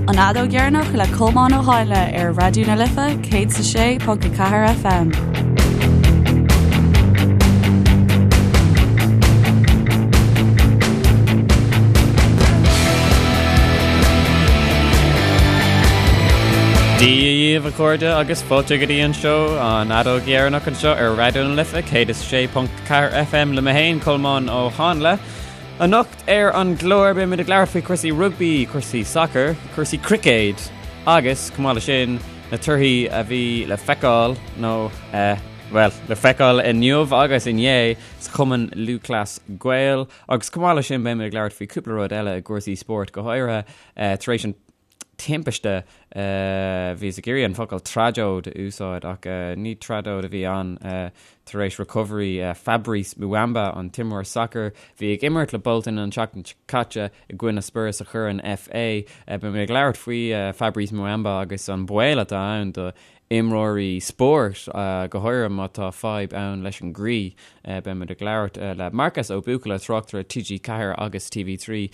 An Fheadóg Dheireanach le Colmán Ó Háinle ar Raidió na Life 106.4 FM. Dia dhaoibh a chairde agus fáilte go dtí an seó an Fheadóg Dheireanach anseo ar Raidió na Life 106.4 FM le mé féin Colmán Ó Háinle. Anocht ar an gclár beimid ag labhairt faoi chúrsaí rugbaí, cúrsaí sacair, cúrsaí cruicéid agus, chomh maith leis sin, na torthaí a bhí le feiceáil, nó, eh, bhuel, le feiceáil inniu agus inné sa Chumann Lúthchleas Gael. Agus chomh maith leis sin beimid ag labhairt faoi cúpla rud eile i gcúrsaí spóirt, go háirithe eh, tar éis an timpiste. Bhíos ag iarraidh an focal tragóid a úsáid ach ní tragóid a bhí ann. Tar éis recovery Fabrice Muamba, an t-imreoir sacair, bhí ag imirt le Bolton an tseachtain seo caite i gcoinne Spurs sa Chorn FA. Beidh mé ag labhairt faoi Fabrice Muamba agus an baol atá ann do imreoirí spóirt, go háirithe má tá fadhb ann leis an gcroí. Beimid ag labhairt le Marcas Ó Buachalla, tráchtaire TG4 agus TV3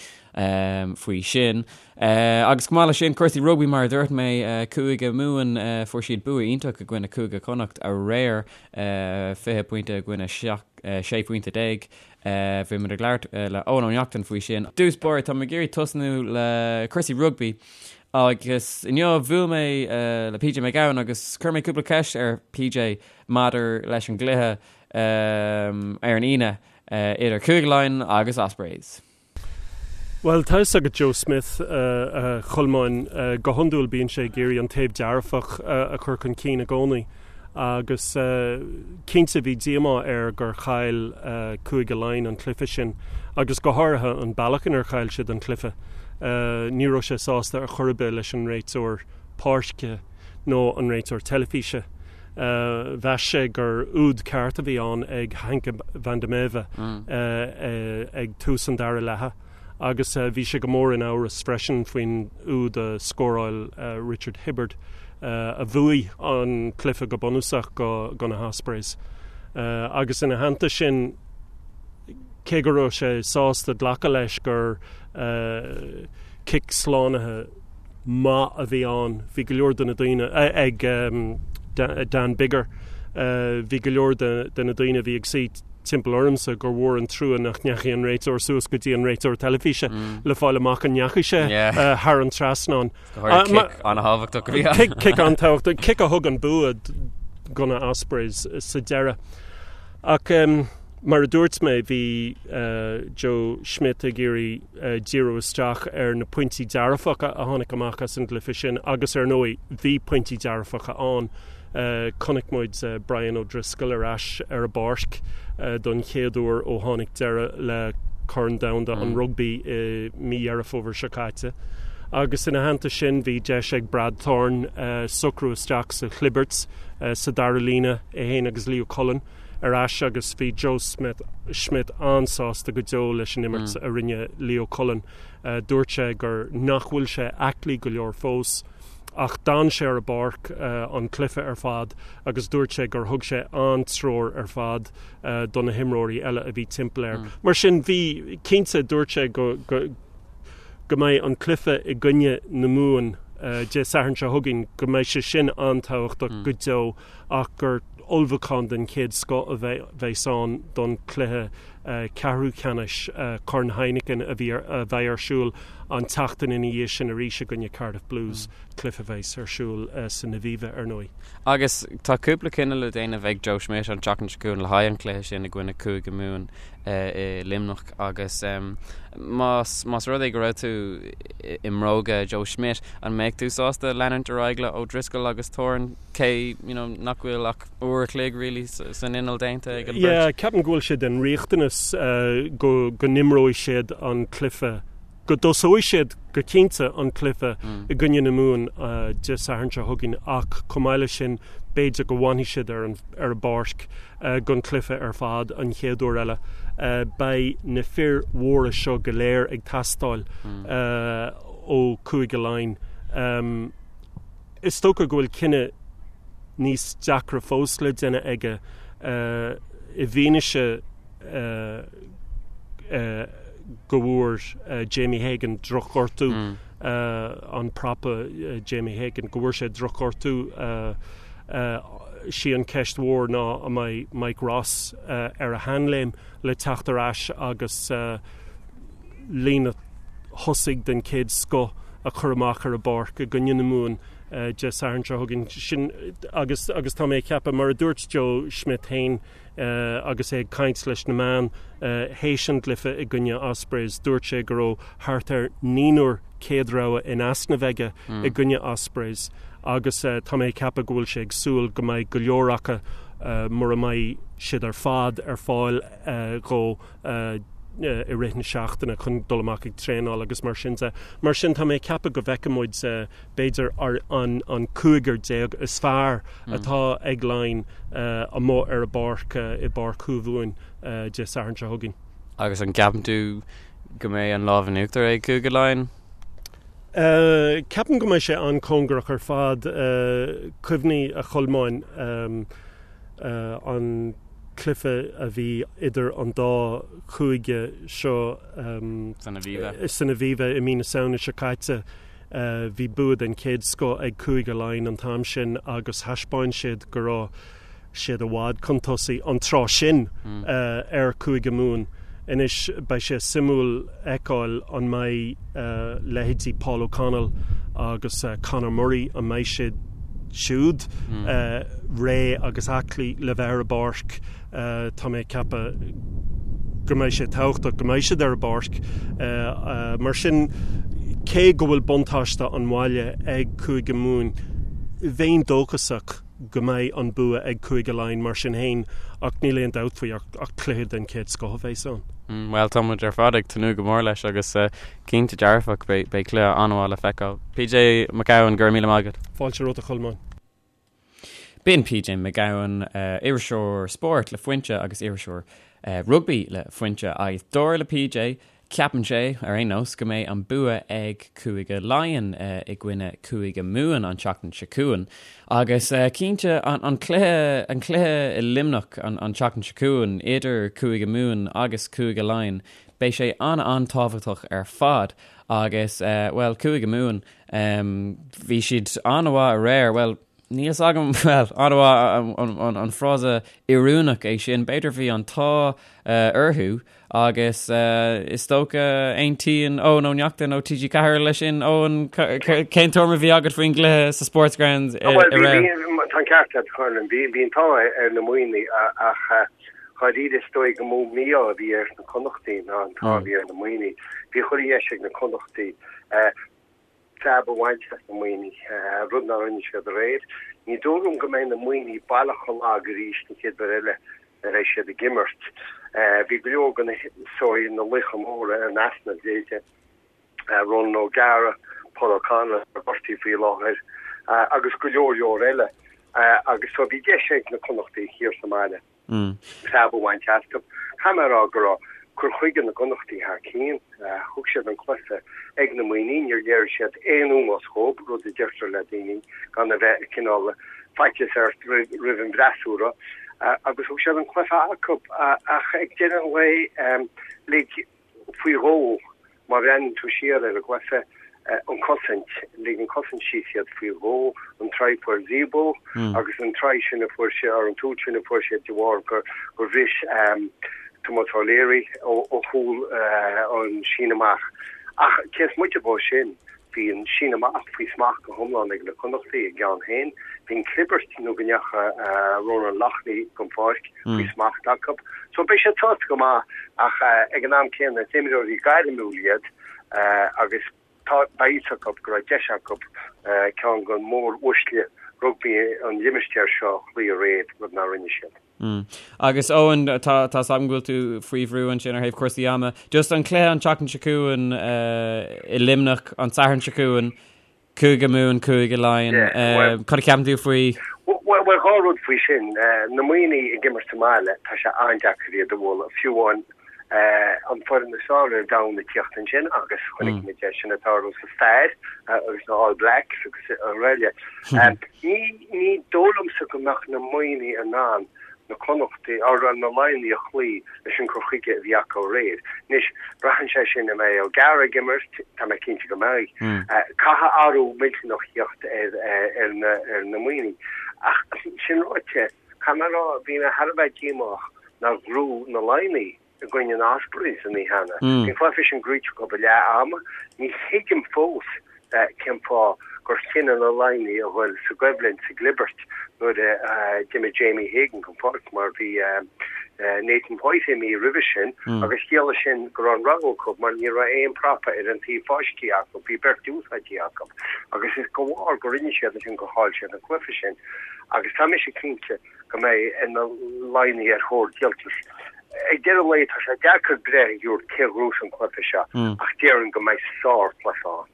faoi sin. Agus chomh maith leis sin, cúrsaí rugbaí mar a dúirt mé, Cúige Mumhan, fuair siad bua iontach i gcoinne Cúige Chonnacht aréir, 20 pointe i gcoinne 16 phointe. Bhí muid ag labhairt le Eoin Ó Neachtain faoi sin. Dtús báire, tá mé ag iarraidh tosnú le cúrsaí rugbaí agus inniu bhuail mé le PJ Mac Gabhann agus chuir mé cúpla ceist ar PJ maidir leis an gcluiche ar an Aoine idir Cúige Laighean agus Ospreys. Bhuel, tá fhios agat Joe Schmidt, a Cholmáin, go hiondúil bíonn sé ag iarraidh an taobh dearfach a chur chun cinn i gcónaí agus cinnte bhí díomá air gur chaill Cúige Laighean an cluiche sin agus go háirithe an bealach inar chaill siad an cluiche. Ní raibh sé sásta ar chor ar bith leis an réiteoir páirce nó an réiteoir teilifíse. Mheas sé gur úd ceart a bhí ann ag Henk van der Merwe ag tús an dara leatha agus bhí sé go mór in amhras freisin faoin úd a scóráil Richard Hibbard a bhuaigh an cluiche go bunúsach do na hOspreys. Agus ina theannta sin, cé go raibh sé sásta glacadh leis gur cic slánaithe maith a bhí ann. Bhí go leor de na daoine ag Dan Biggar, bhí go leor de na daoine a bhí ag suí timpeall ormsa gur mhór an trua nach ndeachaigh an réiteoir suas go dtí an réiteoir teilifíse le fáil amach an ndeachaigh sé thar an trasnán. Cic an-tábhachtach a bhí ann. Cic an-tábhachtach, cic a thug an bua do na Ospreys sa deireadh. Ach mar a dúirt mé, bhí Joe Schmidt ag iarraidh díriú isteach ar na pointí dearfacha a tháinig amach as an gcluiche sin agus ar ndóigh bhí pointí dearfacha ann. Chonaic muid Brian O'Driscoll ar ais ar an bpáirc don chéad uair ó tháinig deireadh le Corn Domhanda an Rugbaí i mí Dheireadh Fómhair seo caite. Agus ina theannta sin bhí deis ag Brad Thorn socrú isteach sa chlibirt sa dara líne, é féin agus Leo Cullen. ar ais agus bhí Joe Schmidt an-sásta go deo leis an imirt a rinne Leo Cullen. Dúirt sé gur nach bhfuil sé aclaí go leor fós ach d'fhan sé ar an bpáirc an cluiche ar fad agus dúirt sé gur thug sé an-treoir ar fad do na himreoirí eile a bhí timpeall air. Mar sin bhí, cinnte, dúirt sé go go mbeidh an cluiche i gcoinne na Mumhan Dé Sathairn seo chugainn, go mbeidh sé sin an-tábhachtach go deo. ach gur ullmhúchán den chéad scoth a bheas ann don chluiche ceathrú ceannais Corn Heineken a bheidh ar siúl an tseachtain ina dhiaidh sin arís i gcoinne Cardiff Blues, cluiche a bheas ar siúl san Aviva, ar ndóigh. Agus tá cúpla cinneadh le déanamh ag Joe Schmidt an tseachtain seo chugainn le haghaidh an chluiche sin i gcoinne Cúige Mumhan i Luimneach agus más más rud é go raibh tú i mbróga Joe Schmidt, an mbeadh tú sásta leanúint ar aghaidh le O'Driscoll agus Thorn? cé you know nach bhfuil ach uair a chloig really san inneall déanta ag an bheirt. Yeah, ceapaim go bhfuil sé den riachtanas go go n-imreoidh siad an cluiche, go dtosóidh siad go cinnte an cluiche i gcoinne na Mumhan Dé Sathairn seo chugainn ach chomh maith leis sin b'fhéidir go bhfanfaidh siad ar an ar an bpáirc don chluiche ar fad an chéad uair eile. Beidh na fir mhóra seo go léir ag teastáil ó Chúige Laighean. Is dócha go bhfuil cinneadh níos deacra fós le déanamh aige i bhfianaise go bhfuair Jamie Hagan drochghortú. an prapa Jamie Hagan, go bhfuair sé drochghortú. Sí an cheist mhór ná an mbeidh Mike Ross ar a sheanléim le teacht ar ais agus líne thosaigh den chéad scoth a chur amach ar an bpáirc i gcoinne na Mumhan Dé Sathairn seo chugainn. Sin agus agus tá mé ag ceapadh, mar a dúirt Joe Schmidt féin agus é ag caint leis na meáin théis an gcluiche i gcoinne Ospreys, dúirt sé go raibh thart ar naonúr céad rogha in easnamh aige i gcoinne Ospreys agus tá mé ag ceapadh go bhfuil sé ag súil go mbeidh go leor acu, mura mbeidh siad ar fad, ar fáil dhó i rith na seachtaine chun dul amach ag traenáil agus mar sin de. Mar sin tá mé ag ceapadh go bhfeicfidh muid b'fhéidir an cúigear is fearr atá ag Laighin amuigh ar an bpáirc i bPáirc Thuamhumhan Dé Sathairn seo chugainn. Agus an gceapann tú go mbeidh an lámh in uachtar ag Cúige Laighean? Ceapaim go mbeidh sé an-cóngarach ar fad. Cuimhnigh, a Cholmáin, an cluiche a bhí idir an dá chúige seo san Aviva san Aviva i mí na Samhna seo caite. Bhí bua den chéad scoth ag Cúige Laighean an t-am sin agus thaispeáin siad go raibh siad i bhfad chun tosaigh an tráth sin ar Chúige Mumhan. Anois beidh sé suimiúil fheiceáil an mbeidh leithéidí Paul O'Connell agus Conor Murray, an mbeidh siad siúd réidh agus aclaí le bheith ar an bpáirc. Tá mé ag ceapadh go mbeidh sé tábhachtach go mbeidh siad ar an bpáirc. Mar sin, cé go bhfuil buntáiste an bhaile ag Cúige Mumhan, bheinn dóchasach go mbeidh an bua ag Cúige Laighean mar sin féin ach níl aon dabht faoi ach cluiche den chéad scoth a bheas ann. Bhuel, tá muid ar fad ag tnúth go mór leis agus cinnte dearfach beidh cluiche an-mhaith le feiceáil. PJ Mac Gabhann, go raibh míle maith agat. Fáilte romhat a Cholmáin. B'in PJ Mac Gabhann, iriseoir spóirt le Foinse agus iriseoir rugbaí le Foinse agus dar le PJ, ceapann sé, ar aon nós, go mbeidh an bua ag Cúige Laighean i gcoinne Cúige Mumhan an tseachtain seo chugainn. Agus cinnte, an cluiche, an cluiche i Luimneach an tseachtain seo chugainn idir Cúige Mumhan agus Cúige Laighean, beidh sé an-an-tábhachtach ar fad. Agus, bhuel, Cúige Mumhan, Bhí siad an-mhaith aréir, bhuel, níl 'fhios agam, bhuel, an-mhaith an frása oiriúnach é sin, b'fhéidir bhí an t-ádh orthu agus is dócha aontaíonn Eoin Ó Neachtain ó TG4 leis sin. Eoin, cén tuairim a bhí agat faoin gcluiche sa Sportsground aréir? Tá an ceart agat, a Cholmáin, bhí an t-ádh ar na Muimhnigh ach dháiríre is dóigh gur mó mí-ádh a bhí ar na Connachtaigh ná an t-ádh a bhí ar na Muimhnigh. Bhí chuile dheis ag na Connachtaigh. preab a bhaint as na Muimhnigh, rud nár rinne siad aréir. Ní dóigh liom go mbeidh na Muimhnigh baileach chomh lag arís an chéad uair eile a bheidh siad ag imirt. Bhí go leor de na sórt na laochra móra in easnamh, leithéidí Ronan O'Gara, Paul O'Connell atá gortaithe faoi láthair agus go leor leor eile agus so bhí deis ag na Connachtaigh thiar sa mbaile. preab a bhaint astu. Caithfidh mé a rá go raibh cur chuige na gConnachtaí thar cionn. Thug siad an cluiche ag na Muimhnigh, níor léirigh siad aon ómós dhóibh, rud a deirtear le daoine gan a bheith cineál faitíos ort roimh an bhfreasúra, agus thug siad an cluiche acu. Ach ag deireadh an lae, lig faoi dhó, má bhreathnaíonn tú siar ar an gcluiche, an cosaint, lig an cosaint síos iad faoi dhó, an try a fuair Zebo agus an try sin a fuair sé, or an túl sin a fuair sé de bharr gur gur bhris Tomás O'Leary ó chúl an síneadh amach. Ach cé is moite dhó sin, Bhí an síneadh amach faoi smacht go hiomlán ag na Connachtaigh a gceann féin. Bhí an chlibirt nó go ndeacha Ronan Loughney den pháirc faoi smacht acu. So beidh siad sásta go maith ach ag an am céanna is imreoirí gairmiúil iad agus tá beidh fhios acu go raibh deis acu ceann de mhór-uaisle rugbaí an limistéir seo a chloí aréir, rud nár rinne siad. Agus Eoin, tá tá 's agam go bhfuil tú faoi bhrú ansin ar thaobh cúrsaí ama. Just an cluiche an tseachtain seo chugainn i Luimneach an Satharn seo chugainn, Cúige Mumhan, Cúige Laighean. Cad a cheapann tú faoi? Bhuel, dhá rud faoi sin. Na Muimhnigh ag imirt sa mbaile, tá sé an-deacair iad a bhualadh, fiú amháin an foireann is fearr ar domhan ag tíocht ansin agus chonaic muid é sin ag tarlú sa stair agus na All Blacks agus araile. Ní ní dóigh liomsa go mbeadh na Muimhnigh in ann. Na Connachtaigh, or na Laighnigh a chloí leis an cur chuige a bhí acu aréir. Anois, braitheann sé sin an mbeidh O'Gara ag imirt, tá mé cinnte go mbeidh. Caithfidh athrú millteanach theacht ar na Muimhnigh. Ach sin ráite, caithfidh mé a rá, bhí mé thar a bheith díomách nár ghnóthaigh na Laighnigh i gcoinne na Ospreys an oíche cheana. Bhí an cluiche sin gnóite acu ag leath ama. Ní thuigim fós cén fáth gur chinn na Laighnigh a dhul sa gcoimhlint, sa gclibirt, nuair a d'imigh Jamie Hagan den pháirc mar bhí Nathan White imithe roimhe sin agus chiallaigh sin go raibh an rogha acu mar ní raibh aon prapa ar an taobh fáiscthe acu, bhí beirt úsáidte acu agus is de bharr gur rinne siad sin gur chaill siad an cluiche sin agus tá mise cinnte go mbeidh na Laighnigh ar thóir díoltais. Ag deireadh an lae tá sé deacair breith a thabhairt cé a ghnóthós an cluiche seo ach déarfainn go mbeidh sárchluiche ann.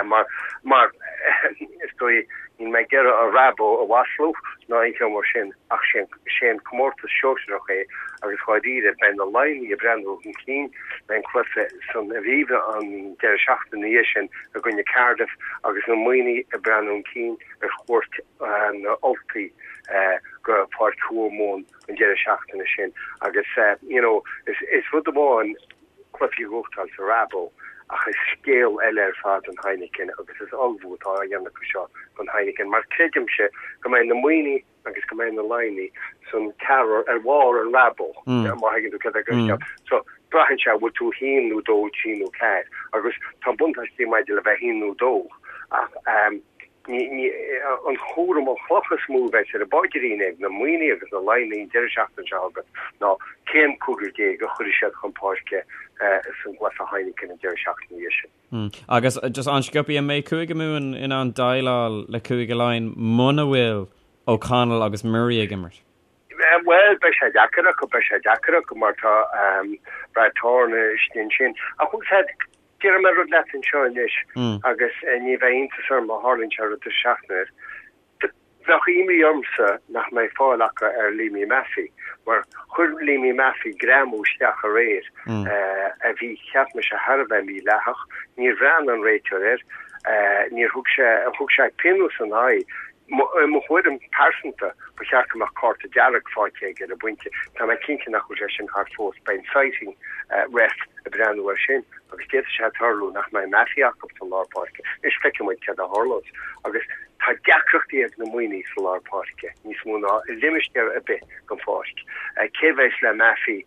Mar, mar is dóigh, níl mé ag iarraidh an Rabo a mhaslú ná aon cheo mar sin ach sé an comórtas sóisearach é agus dháiríre beidh na Laighnigh ag breathnú chun cinn le an cluiche san Aviva an deireadh seachtaine ina dhiaidh sin i gcoinne Cardiff agus na Muimhnigh ag breathnú chun cinn ar chuairt na Ultaigh go Páirc Thuamhumhan an deireadh seachtaine sin agus you know is rud amháin cluichí a ghnóthachtáil sa Rabo ach is scéal eile ar fad an Heineken agus is ullmhú atá á dhéanamh acu seo don Heineken mar creidimse go mbeidh na Muimhnigh agus go mbeidh na Laighnigh san ceathrar ar bharr an Rabo má thuigeann tú céard é mm. So braitheann sé bhfuil tú haon nó dó, trí nó ceathair agus tá buntáistí maidir le bheith haon nó dó ach um, An cúram, an chloch is mó a bheas ar a bpaidrín ag na Muimhnigh agus na Laighnigh an deireadh seachtaine seo chugainn ná cén cúigear a chuirfidh siad chun páirce san gcluiche Heineken an deireadh seachtaine ina dhiaidh sin. Agus just an-sciobtha, an mbeidh Cúige Mumhan in ann déileáil le Cúige Laighean muna bhfuil O'Connell agus Murray ag imirt? Bhuel, beidh sé deacair acu, beidh sé deacair acu mar tá Brad Thorn istigh ansin. Ach Déarfaidh mé rud leat anseo anois agus ní bheidh iontas orm má tharlaíonn sé rud sa seachtain air. Bheadh imní ormsa nach mbeidh fáil acu ar Liam Maffey mar chuir Liam Maffey greamú isteach aréir a bhí, cheap mise, thar a bheith mídhleathach. Níor bhreathnaigh an réiteoir air, níor thug sé, thug sé pionós ina aghaidh. I mo thuairim pearsanta, ba cheart go mbeadh cárta dearg faighte aige ar an bpointe. Tá mé cinnte nach bhfuil sé sin thart fós. Beidh an citing ref ag breathnú air sin agus d'fhéadfadh sé tarlú nach mbeidh Maffey acu sa lár páirce. Anois feicfidh muid céard a tharlós. Agus tá deacrachtaí ag na Muimhnigh sa lár páirce, níos mó ná i limistéar ar bith den pháirc. Cé bheas le Maffey,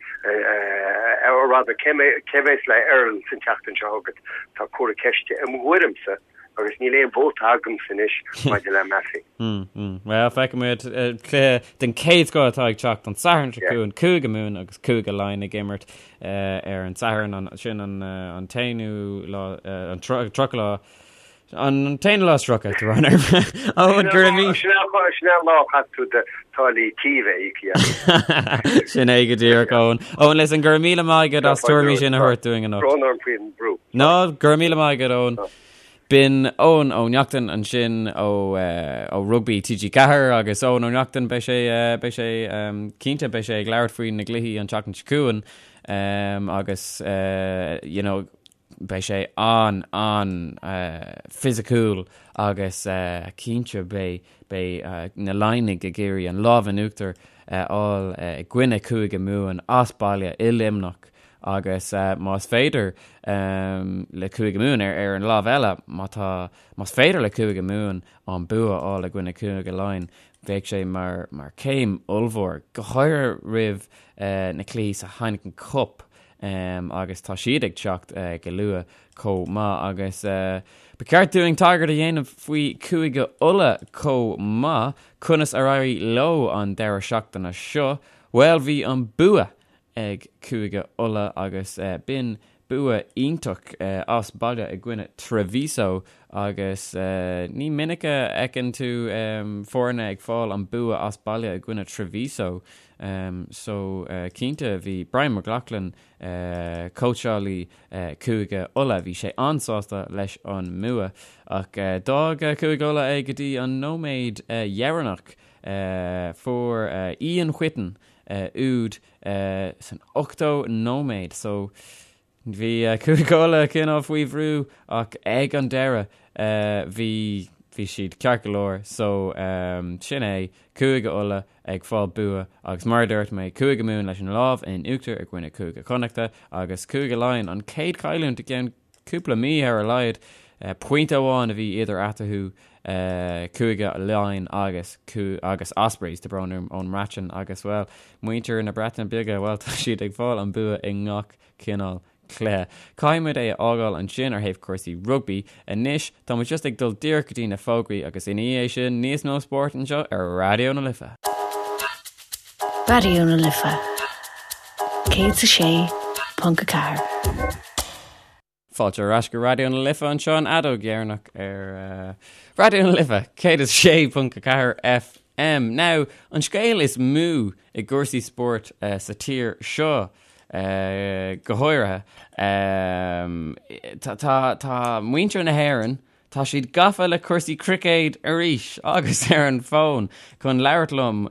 or rather, cé bheas le Earls an tseachtain seo chugainn? Tá comhartha ceiste i mo thuairimse. Agus níl aon vóta agamsa anois maidir le Maffey. Bhuel, feicfidh muid. Cluiche den chéad scoth atá ag teacht an Satharn seo chugainn, Cúige Mumhan agus Cúige Laighean ag imirt ar an Satharn, sin an t-aonú lá, an 30 lá, an t-aonú lá is 30, tá brón orm. Eoin, go raibh míle. Sin é an lá a chaithfidh tú do táillí tí a bheith íoctha. Sin é go díreach, Eoin. Eoin, listen, go raibh míle maith agat as tuairimí sin a thabhairt dúinn anocht. Brón orm faoin brú. No, go raibh míle maith agat, Eoin. B'in Eoin Ó Neachtain ansin ó ó Rugbaí TG4 agus Eoin Ó Neachtain beidh sé beidh sé cinnte beidh sé ag labhairt faoi na gcluichí an tseachtain seo chugainn agus you know beidh sé an an fisiciúil agus cinnte beidh beidh na Laighnigh ag iarraidh an lámh in uachtar a fháil i gcoinne Cúige Mumhan as baile i Luimneach Agus más féidir le Cúige Mumhan, ar an lámh eile, má tá, más féidir le Cúige Mumhan an bua a fháil i gcoinne Cúige Laighean, bheadh sé mar, mar céim ollmhór, go háirithe roimh na cluichí sa Heineken Cup agus tá siad ag teacht go luath chomh maith. Agus ba cheart dúinn tagairt a dhéanamh faoi Chúige Uladh chomh maith, conas ar éirigh leo an deireadh seachtaine seo? Bhuel, bhí an bua ag Cúige Uladh agus b'in bua iontach as baile i gcoinne Treviso agus ní minic a fheiceann tú foirne ag fáil an bua as baile i gcoinne Treviso so cinnte bhí Brian McLaughlin, cóitseálaí Cúige Uladh, bhí sé an-sásta leis an mbua ach d'fhág Cúige Uladh é go dtí an nóiméad dheireanach. Fuair Ian Whitten úd san 80 nóiméad so bhí Cúige Uladh cineál faoi bhrú ach ag an deireadh bhí. Bhí siad ceart go leor so sin é, Cúige Uladh ag fáil bua agus mar a dúirt mé, Cúige Mumhan leis an lámh in uachtar i gcoinne Cúige Connachta agus Cúige Laighean an chéad chailliúint i gceann cúpla mí ar a laghad. Pointe amháin a bhí idir eatarthu, Cúige Laighean agus agus Ospreys, tá brón orm, ón mBreatain agus, bhuel, muintir na Breataine Bige, bhuel, tá siad ag fáil an bua i ngach cineál cluiche. Caithfidh muid é a fhágáil ansin ar thaobh cúrsaí rugbaí. Anois, tá muid just ag dul díreach go dtí na fógraí agus ina dhiaidh sin, níos mó spóirt anseo ar Raidió na Life. Raidió na Life 106.4. Fáilte ar ais go Raidió na Life anseo an fheadóg dheireanach ar Raidió na Life 106.4 FM. Now, an scéal is mó i gcúrsaí spóirt sa tír seo go háirithe, tá muintir na hÉireann, Tá siad gafa le cúrsaí cruicéid arís agus ar an bhfón chun labhairt liom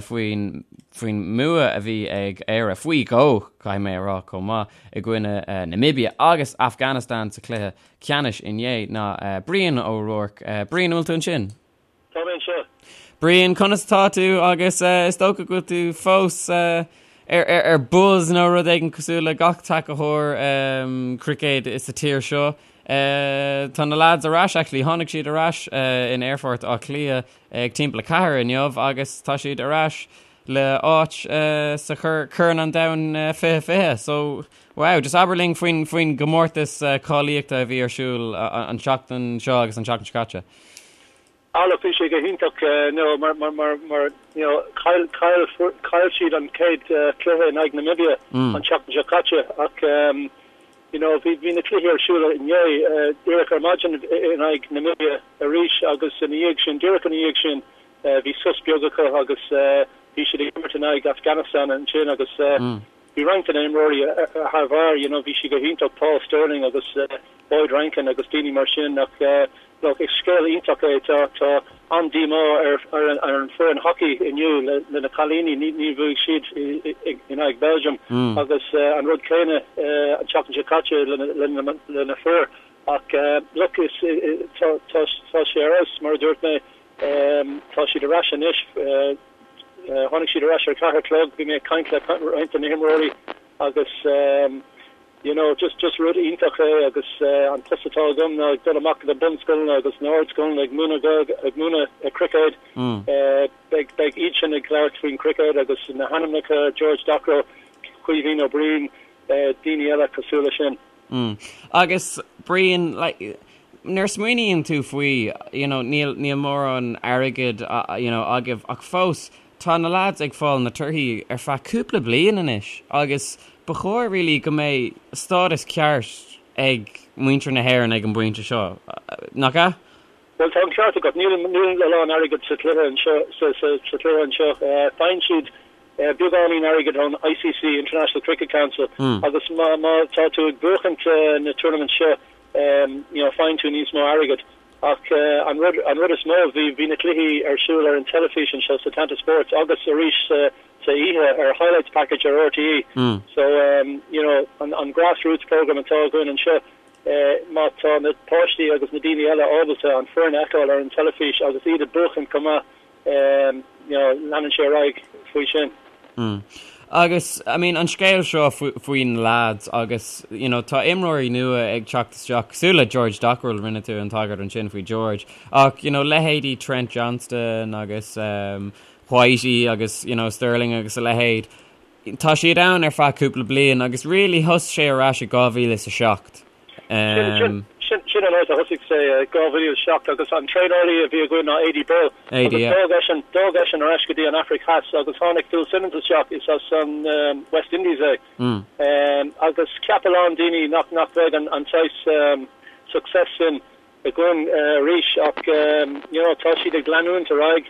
faoin faoin mbua a bhí ag Éire, faoi dhó, caithfidh mé a rá chomh maith, i gcoinne Namibia agus Afghanistan sa chluiche ceannais inné ná Brian Ó Ruairc. Brian, an bhfuil tú ansin? Tá mé anseo. Brian, conas atá tú agus is dócha go bhfuil tú fós ar buzz nó rud éigin cosúil le gach tacaitheoir cruicéid sa tír seo. Tá na lads ar ais, actually, tháinig siad ar ais in Aerfort Átha Cliath ag timpeall a ceathair inniu agus tá siad ar ais le áit sa Chorn an Domhain 2020. So, wow, just abair linn faoin faoin gcomórtas cáilíochta a bhí ar siúl an tseachtain seo agus an tseachtain seo caite. Ah look, bhí sé go hiontach you know mar mar mar mar you know chaill chaill chaill siad an chéad cluiche in aghaidh Namibia an tseachtain seo caite ach you know bhí bhí na cluichí ar siúl inné díreach ar maidin in aghaidh Namibia arís agus ina dhiaidh sin díreach ina dhiaidh sin bhí sos beag acu agus bhí siad ag imirt in aghaidh Afghanistan ansin agus bhí roinnt de na himreoirí thar barr you know bhí siad go hiontach Paul Stirling agus Boyd Rankin agus daoine mar sin ach look is scéal iontach é tá tá an-díomá ar ar an ar an foireann hockey inniu le le na cailíní ní ní bhuaigh siad in aghaidh Belgium agus an rud céanna an tseachtain seo caite le le le na fir ach look is tá tá tá sé ar fheabhas mar a dúirt mé tá siad ar ais anois tháinig siad ar ais ar a ceathair a chlog bhí mé ag caint le roinnt de na himreoirí agus you know, just, just rud iontach é agus an post atá agam ná ag dul amach go na bunscoileanna agus na hardscoileanna ag múineadh Gaeilge, ag múineadh cruicéad. Beidh, beidh iad sin ag labhairt faoin cruicéad agus na hainmneacha, George Dockrell, Caoimhín Ó Brien, daoine eile cosúil leis sin. Agus Brian, like, nuair a smaoiníonn tú faoi, you know, níl, níl mórán airgid, you know, agaibh ach fós, Tá na lads ag fáil na torthaí ar feadh cúpla bliain anois agus ba chóir really go mbeidh stádas ceart ag muintir na hÉireann ag an bpointe seo, nach ea? Bhuel, tá an ceart agat. Níl níl a lán airgid sa chluiche anseo, sa sa sa chluiche anseo. Faigheann siad beagáinín airgid ón ICC, International Cricket Council, agus má má tá tú ag buachaint na tournaments seo, you know, faigheann tú níos mó airgid. Ach an rud, an rud is mó, bhí, bhí na cluichí ar siúl ar an teilifís anseo sa Setanta Sports agus arís sa, sa oíche ar Highlights Package ar RTÉ. So, you know, an, an grassroots program atá againn anseo, má tá na páistí agus na daoine eile ábalta an foireann a fheiceáil ar an teilifís agus iad ag buachan chomh maith, you know, leanann sé ar aghaidh faoi sin. Mm. Agus, I mean, an scéal seo faoi na lads agus, you know, tá imreoirí nua ag teacht isteach, cosúil le George Dockrell, rinne tú an tagairt ansin faoi George, ach, you know, leithéidí Trent Johnston agus um, Whitey agus, you know, Stirling agus a leithéid, tá siad ann ar feadh cúpla bliain agus really thosaigh sé ar ais i 2007. Sin an áit a thosaigh sé i 2007 agus an traenálaí a bhí againn ná Aidy Birrell agus d'fhág eisean, d'fhág eisean ar ais go dtí an Afraic Theas agus tháinig Phil Simmons isteach, is as an West Indies é. Agus cheap a lán daoine nach nach bheadh an saghas success sin againn arís ach you know tá siad ag leanúint ar aghaidh.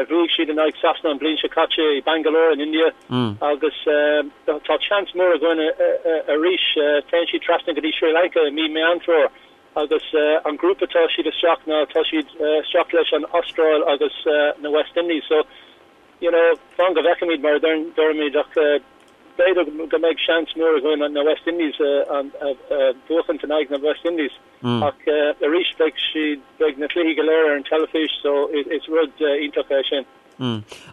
Bhuaigh siad in aghaidh Sasana an bhliain seo caite i Bangalore in India agus tá seans mór againn arís. Téann siad trasna go dtí Sri Lanka i mí Meán Fómhair agus an grúpa atá siad isteach ná tá siad isteach leis an Astráil agus na West Indies. So, you know, fan go bhfeicfimid mar a deirimid ach b'fhéidir go mbeidh seans mór againn na West Indies a bhuachaint in aghaidh na West Indies. Ach arís beidh siad, beidh na cluichí go léir ar an teilifís so is rud iontach é sin.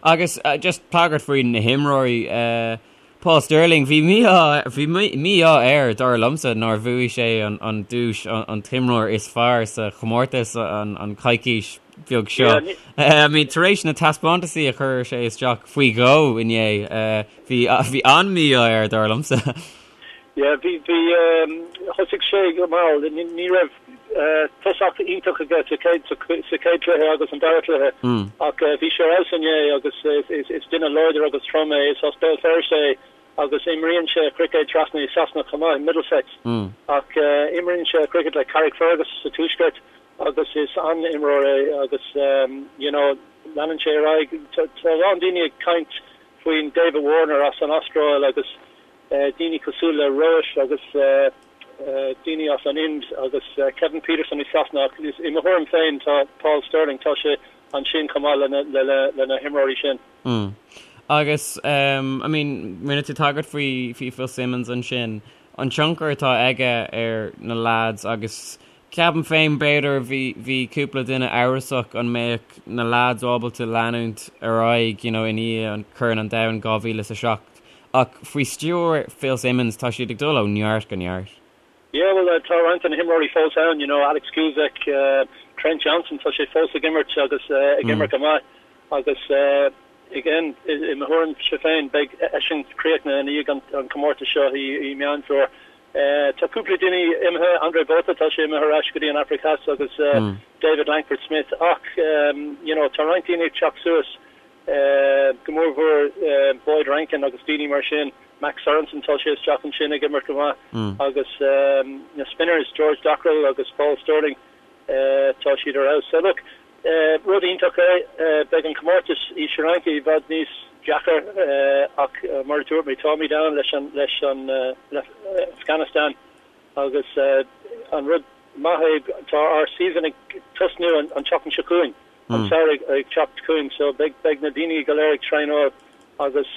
Agus just tagairt faoi na himreoirí, Paul Stirling, bhí mí-ádh, bhí mí-ádh air, dar liomsa, nár bhuaigh sé an duais an t-imreoir is fearr sa chomórtas an coicís bheag seo. I mean, tar éis na taispeántasaí a chuir sé isteach faoi dhó inné, bhí, bhí an-mí-ádh air, dar liomsa. Yeah, bhí, bhí, thosaigh sé go mall, ní raibh tosach iontach aige sa chéad, sa chéad chluiche agus an dara cluiche ach bhí sé ar fheabhas inné agus is duine láidir agus trom é, is as Béal Feirste é agus imríonn sé cruicéad trasna i Sasana chomh maith, i Middlesex, ach imríonn sé cruicéad le Carrickfergus sa tuaisceart agus is an-imreoir é agus you know leanann sé ar aghaidh. Tá a lán daoine ag caint faoin David Warner as an Astráil agus daoine cosúil le Rohit agus daoine as an Ind agus Kevin Pietersen i Sasana ach i mo thuairim féin tá Paul Stirling, tá sé ansin chomh maith le na himreoirí sin. Mm. Agus I mean rinne tú tagairt faoi faoi Phil Simmons ansin, an tionchar atá aige ar na lads agus Ceapaim féin, b'fhéidir, bhí, bhí cúpla duine amhrasach an mbeadh na lads ábalta leanúint ar aghaidh, you know, i ndiaidh an Corn an Domhain 2007 ach faoi stiúir Phil Simmons tá siad ag dul ó neart go neart. Yeah, well, tá roinnt de na himreoirí fós ann, you know, Alex Kuszczak, Trent Johnson, tá sé fós ag imirt agus ag imirt go maith agus again, i mo thuairimse féin, beidh eisean críochnaithe i ndiaidh an comórtas seo i Meán Fómhair. Tá cúpla duine imithe, Andre Botha, tá sé imithe ar ais go dtí an Afraic Theas agus David Langford Smith ach you know tá roinnt daoine ag teacht suas, go mór mhór Boyd Rankin agus daoine mar sin, Max Sorensen tá sé isteach ansin ag imirt go maith agus na spinners George Dockrell agus Paul Stirling tá siad ar fheabhas. So look, Rud iontach é. Beidh an comórtas i Sri Lanka i bhfad níos deacair ach mar a dúirt mé, táimid ann leis an leis an le Afghanistan agus an rud maith é tá ár season ag tosnú an tseachtain seo chugainn, an samhradh ag teacht chugainn so beidh beidh na daoine go léir ag traenáil agus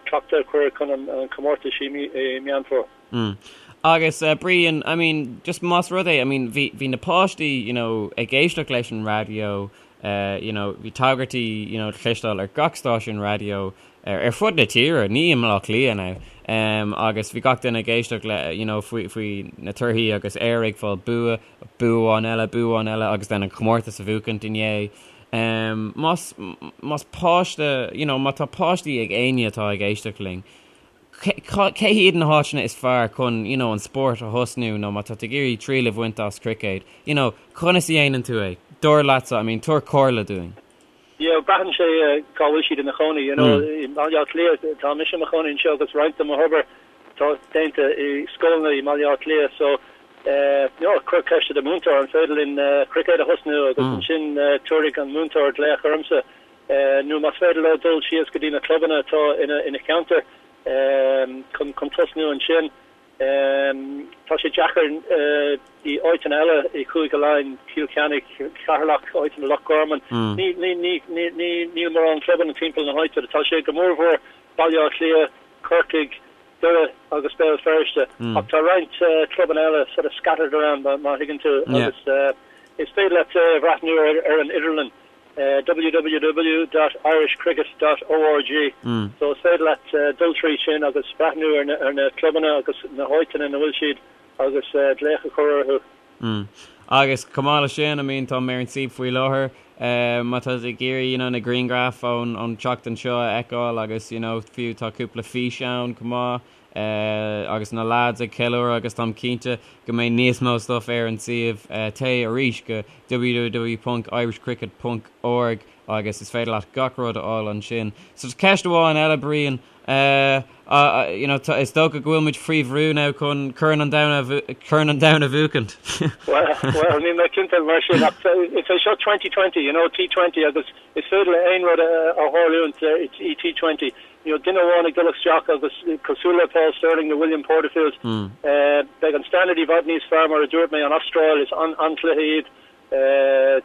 cleachtadh a chur chun an comórtas i Meán Fómhair. Mm. Agus eh, Brian, I mean, just más rud é, I mean, bhí, bhí na páistí, you know, ag éisteacht leis an raidió, eh, you know, bhí tagairtí, you know, cloisteáil ar gach stáisiún raidió ar, ar fud na tíre, ní i mBleá Cliath now, um, agus bhí gach duine ag éisteacht le, you know, faoi, faoi na torthaí agus Éire ag fáil bua, bua amháin eile, bua amháin eile agus then an comórtas a bhuachaint inné. Um, más, más páiste, you know, má tá páistí ag éinne atá ag éisteacht linn, Cé hiad na háiteanna is fearr chun you know an spórt a thosnú nó má tá tú ag iarraidh triail a bhaint as cruicéad, you know, conas a dhéanann tú é? Dar leatsa, I mean, tabhair comhairle dúinn. Yeah, braitheann sé cá bhfuil siad ina chónaí, you know, i mBaile Átha Cliath, tá mise i mo chónaí anseo agus roinnt de mo hobair tá déanta i scoileanna i mBaile Átha Cliath so eh, you know, cuir ceist ar do mhúinteoir an féidir linn cruicéad a thosnú agus ansin tabharfaidh an múinteoir glaoch ormsa. nó más féidir leo dul síos go dtí na clubanna atá ina cheantar chun tosnú ansin. Tá sé deacair i áiteanna eile i Cúige Laighean, Cill Chainnigh, Ceatharlach, áiteanna Loch Garman. Níl mórán clubanna timpeall na háite. Tá sé go mórmhór Baile Átha Cliath, Corcaigh, Doire agus Béal Feirste ach tá roinnt clubanna eile sort of scattered around má thuigeann tú agus is féidir leat bhreathnú ar an idirlíon. www dot irishcricket dot org so is féidir leat dul trí sin agus breathnú ar na clubanna agus na háiteanna ina bhfuil siad agus glaoch a chur orthu. Mm. Agus chomh maith leis sin, I mean, tá mé ar an suíomh faoi láthair, má tá tú ag iarraidh, you know, na grianghraif ón ón tseachtain seo a fheiceáil agus, you know, fiú tá cúpla físeán chomh maith. agus na lads ag ceiliúradh agus táim cinnte go mbeidh níos mó stuff ar an suíomh. Téigh arís go www ponc irishcricket ponc org agus is féidir leat gach rud a fháil ansin. So ceist amháin eile Brian, you know, is dócha go bhfuil muid faoi bhrú now chun Corn an Domhain a Corn an Domhain a bhuachaint. Well, well, níl mé cinnte mar sin ach is é seo 2020, you know, T20 agus is féidir le aon rud a tharlúint i T20. You know, duine amháin ag dul isteach agus cosúil le Paul Stirling nó William Porterfield, beidh an standard i bhfad níos fearr mar a dúirt mé, an Astráil is an-chluiche iad,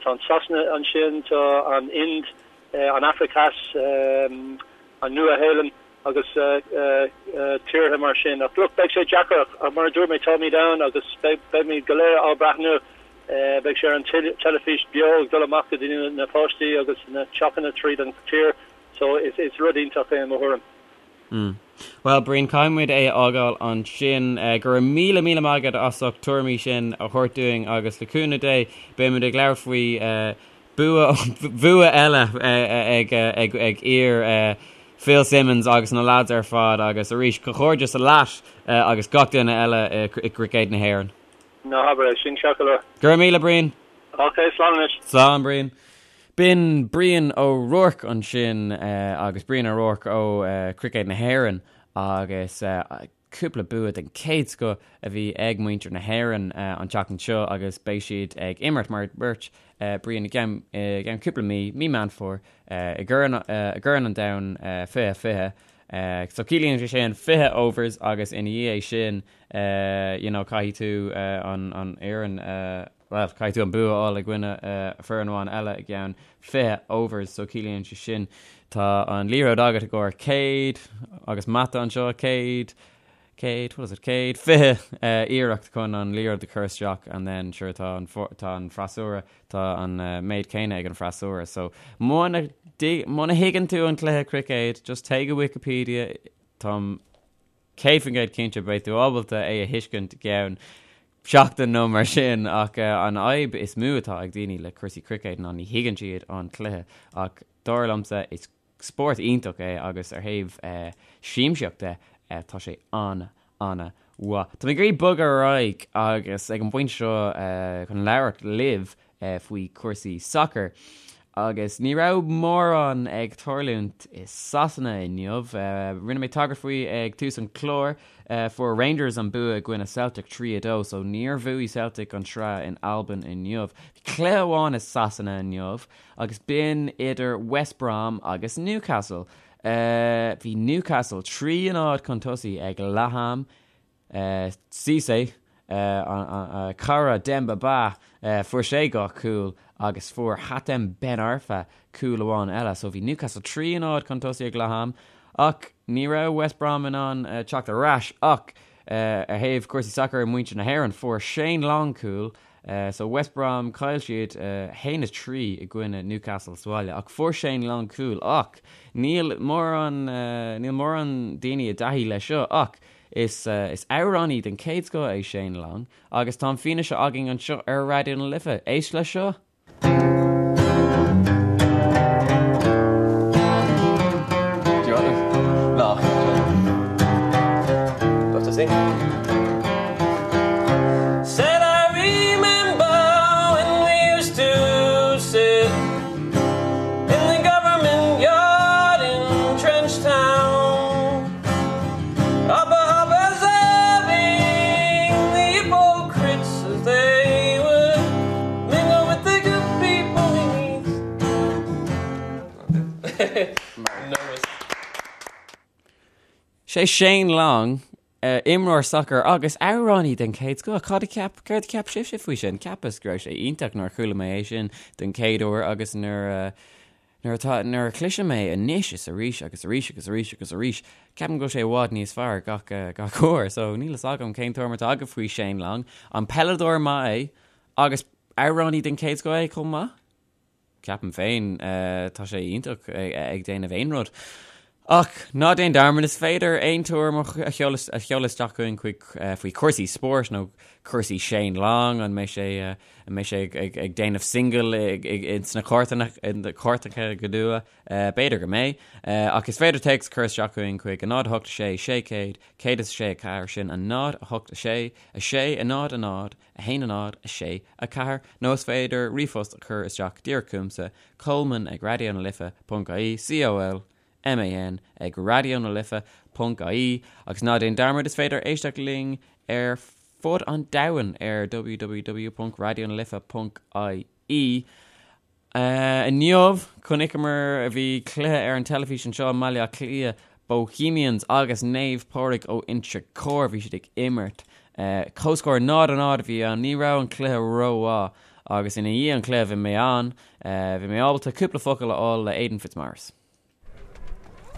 tá an Sasana ansin, tá an Ind, an Afraic Theas, an Nua-Shéalainn. agus tíortha mar sin. Ach look, beidh sé deacair ach mar a dúirt mé, táimid ann agus beimid go léir á breathnú. Beidh sé ar an teilifís beo ag dul amach go dtí na páistí agus na teachanna tríd an tír so is rud iontach é i mo thuairim. Mm. Bhuel, Brian, caithfidh muid é a fhágáil ansin. Go raibh míle míle maith agat as ucht tuairimí sin a thabhairt dúinn agus le cúnamh Dé beidh muid ag labhairt faoi bua bhua eile ag ag ag fir Phil Simmons agus na lads ar fad agus arís comhghairdeas leat agus gach duine eile i gCruicéad na hÉireann. Ná habair é sin, ceart go leor. Go raibh míle, Brian. Ok, slán anois. Slán, Brian. B'in Brian O'Rourke ansin agus Brian O'Rourke ó Cruicéad na hÉireann agus cúpla bua den chéad scoth a bhí ag muintir na hÉireann an tseachtain seo agus beidh siad ag imirt, mar a dúirt Brian, i gceann cúpla mí, mí Meán Fómhair, i gCorn an Domhain 2020. So ciallaíonn sé sin 20 overs agus ina dhiaidh sin you know caithfidh tú an fhoireann bhuel caithfidh tú an bua a fháil i gcoinne foireann amháin eile i gceann 20 overs so ciallaíonn sé sin tá an liathróid agat i gcomhair 100 agus mata anseo 100 100 what is it 120 iarracht chun an liathróid a chur isteach and then sure tá an tá an freasúra tá an méid céanna ag an freasúra so muna muna thuigeann tú an cluiche cruicéid just téigh go Wikipedia táim 100% cinnte beidh tú ábalta é a thuiscint i gceann seachtain nó mar sin ach an fhadhb is mó atá ag daoine le cúrsaí cruicéid ná ní thuigeann siad an cluiche ach dar liomsa is spórt iontach é agus ar thaobh siamsaíocht de tá sé an-an-mhaith. Tá mé ag iarraidh bogadh ar aghaidh agus ag an bpointe seo chun labhairt libh faoi chúrsaí sacair. Agus ní raibh mórán ag tarlúint i Sasana inniu. Rinne mé tagairt faoi ag tús an chláir. Fuair Rangers an bua i gcoinne Celtic 3-2, so níor bhuaigh Celtic an tsraith in Albain inniu. Bhí cluiche amháin i Sasana inniu agus b'in idir West Brom agus Newcastle. Bhí Newcastle 3-0 chun tosaigh ag leath am. Cisse, cara Demba Ba, fuair sé dhá chúl agus fuair Hatem Ben Arfa cúl amháin eile. So bhí Newcastle 3-0 chun tosaigh ag leath am ach ní raibh West Brom in ann teacht ar ais ach ar thaobh cúrsaí sacair muintir na hÉireann fuair Shane Long cúl So West Brom, chaill siad 1-3 i gcoinne Newcastle sa bhaile ach fuair Shane Long cúl ach níl mórán, níl mórán daoine i dtaithí leis seo ach is, is amhránaí den chéad scoth é Shane Long agus tá an fianaise againn anseo ar Raidió na Life. Éist leis seo! Sé Shane Long, imreoir sacair agus amhránaí den chéad scoth. Cad a cheap, céard a cheap sibhse faoi sin? Cheapas go raibh sé iontach nuair a chuala mé é sin den chéad uair agus nuair Nuair atá, nuair a chloisim é anois is arís agus arís agus arís agus arís, ceapaim go bhfuil sé i bhfad níos fearr gach, gach uair. So, níl fhios agam cén tuairim atá agaibh faoi Shane Long. An peileadóir maith é agus amhránaí den chéad scoth é chomh maith? Ceapaim féin, tá sé iontach ag déanamh aon rud. Ach ná déan dearmad, is féidir aon tuairim a sheoladh a sheoladh isteach chugainn chuig faoi chúrsaí spóirt nó cúrsaí Shane Long, an mbeidh sé an mbeidh sé ag ag ag déanamh single ins na cairteacha go luath? B'fhéidir go mbeidh. Ach is féidir téacs a chur isteach chugainn chuig 0 8 6 600 106 4, sin 0 8 6 6 0 0 1 0 6 4, nó is féidir ríomhphost a chur isteach díreach chugamsa, Colman ag Raidió na Life ponc ie, C O L M A N ag Raidió na Life ponc ie, agus ná déan dearmad is féidir éisteacht linn ar fud an domhain ar www ponc raidionalife ponc ie. Inniu, chonaiceamar, bhí cluiche ar an teilifís anseo i mBaile Átha Cliath, Bohemians agus Naomh Pádraig ó Inse Chór, bhí siad ag imirt. Comhscór 0-0 a bhí ann, ní raibh an cluiche rómhaith agus ina dhiaidh an cluiche bhí mé ann, bhí mé ábalta cúpla focal a fháil le Aidan Fitzmaurice.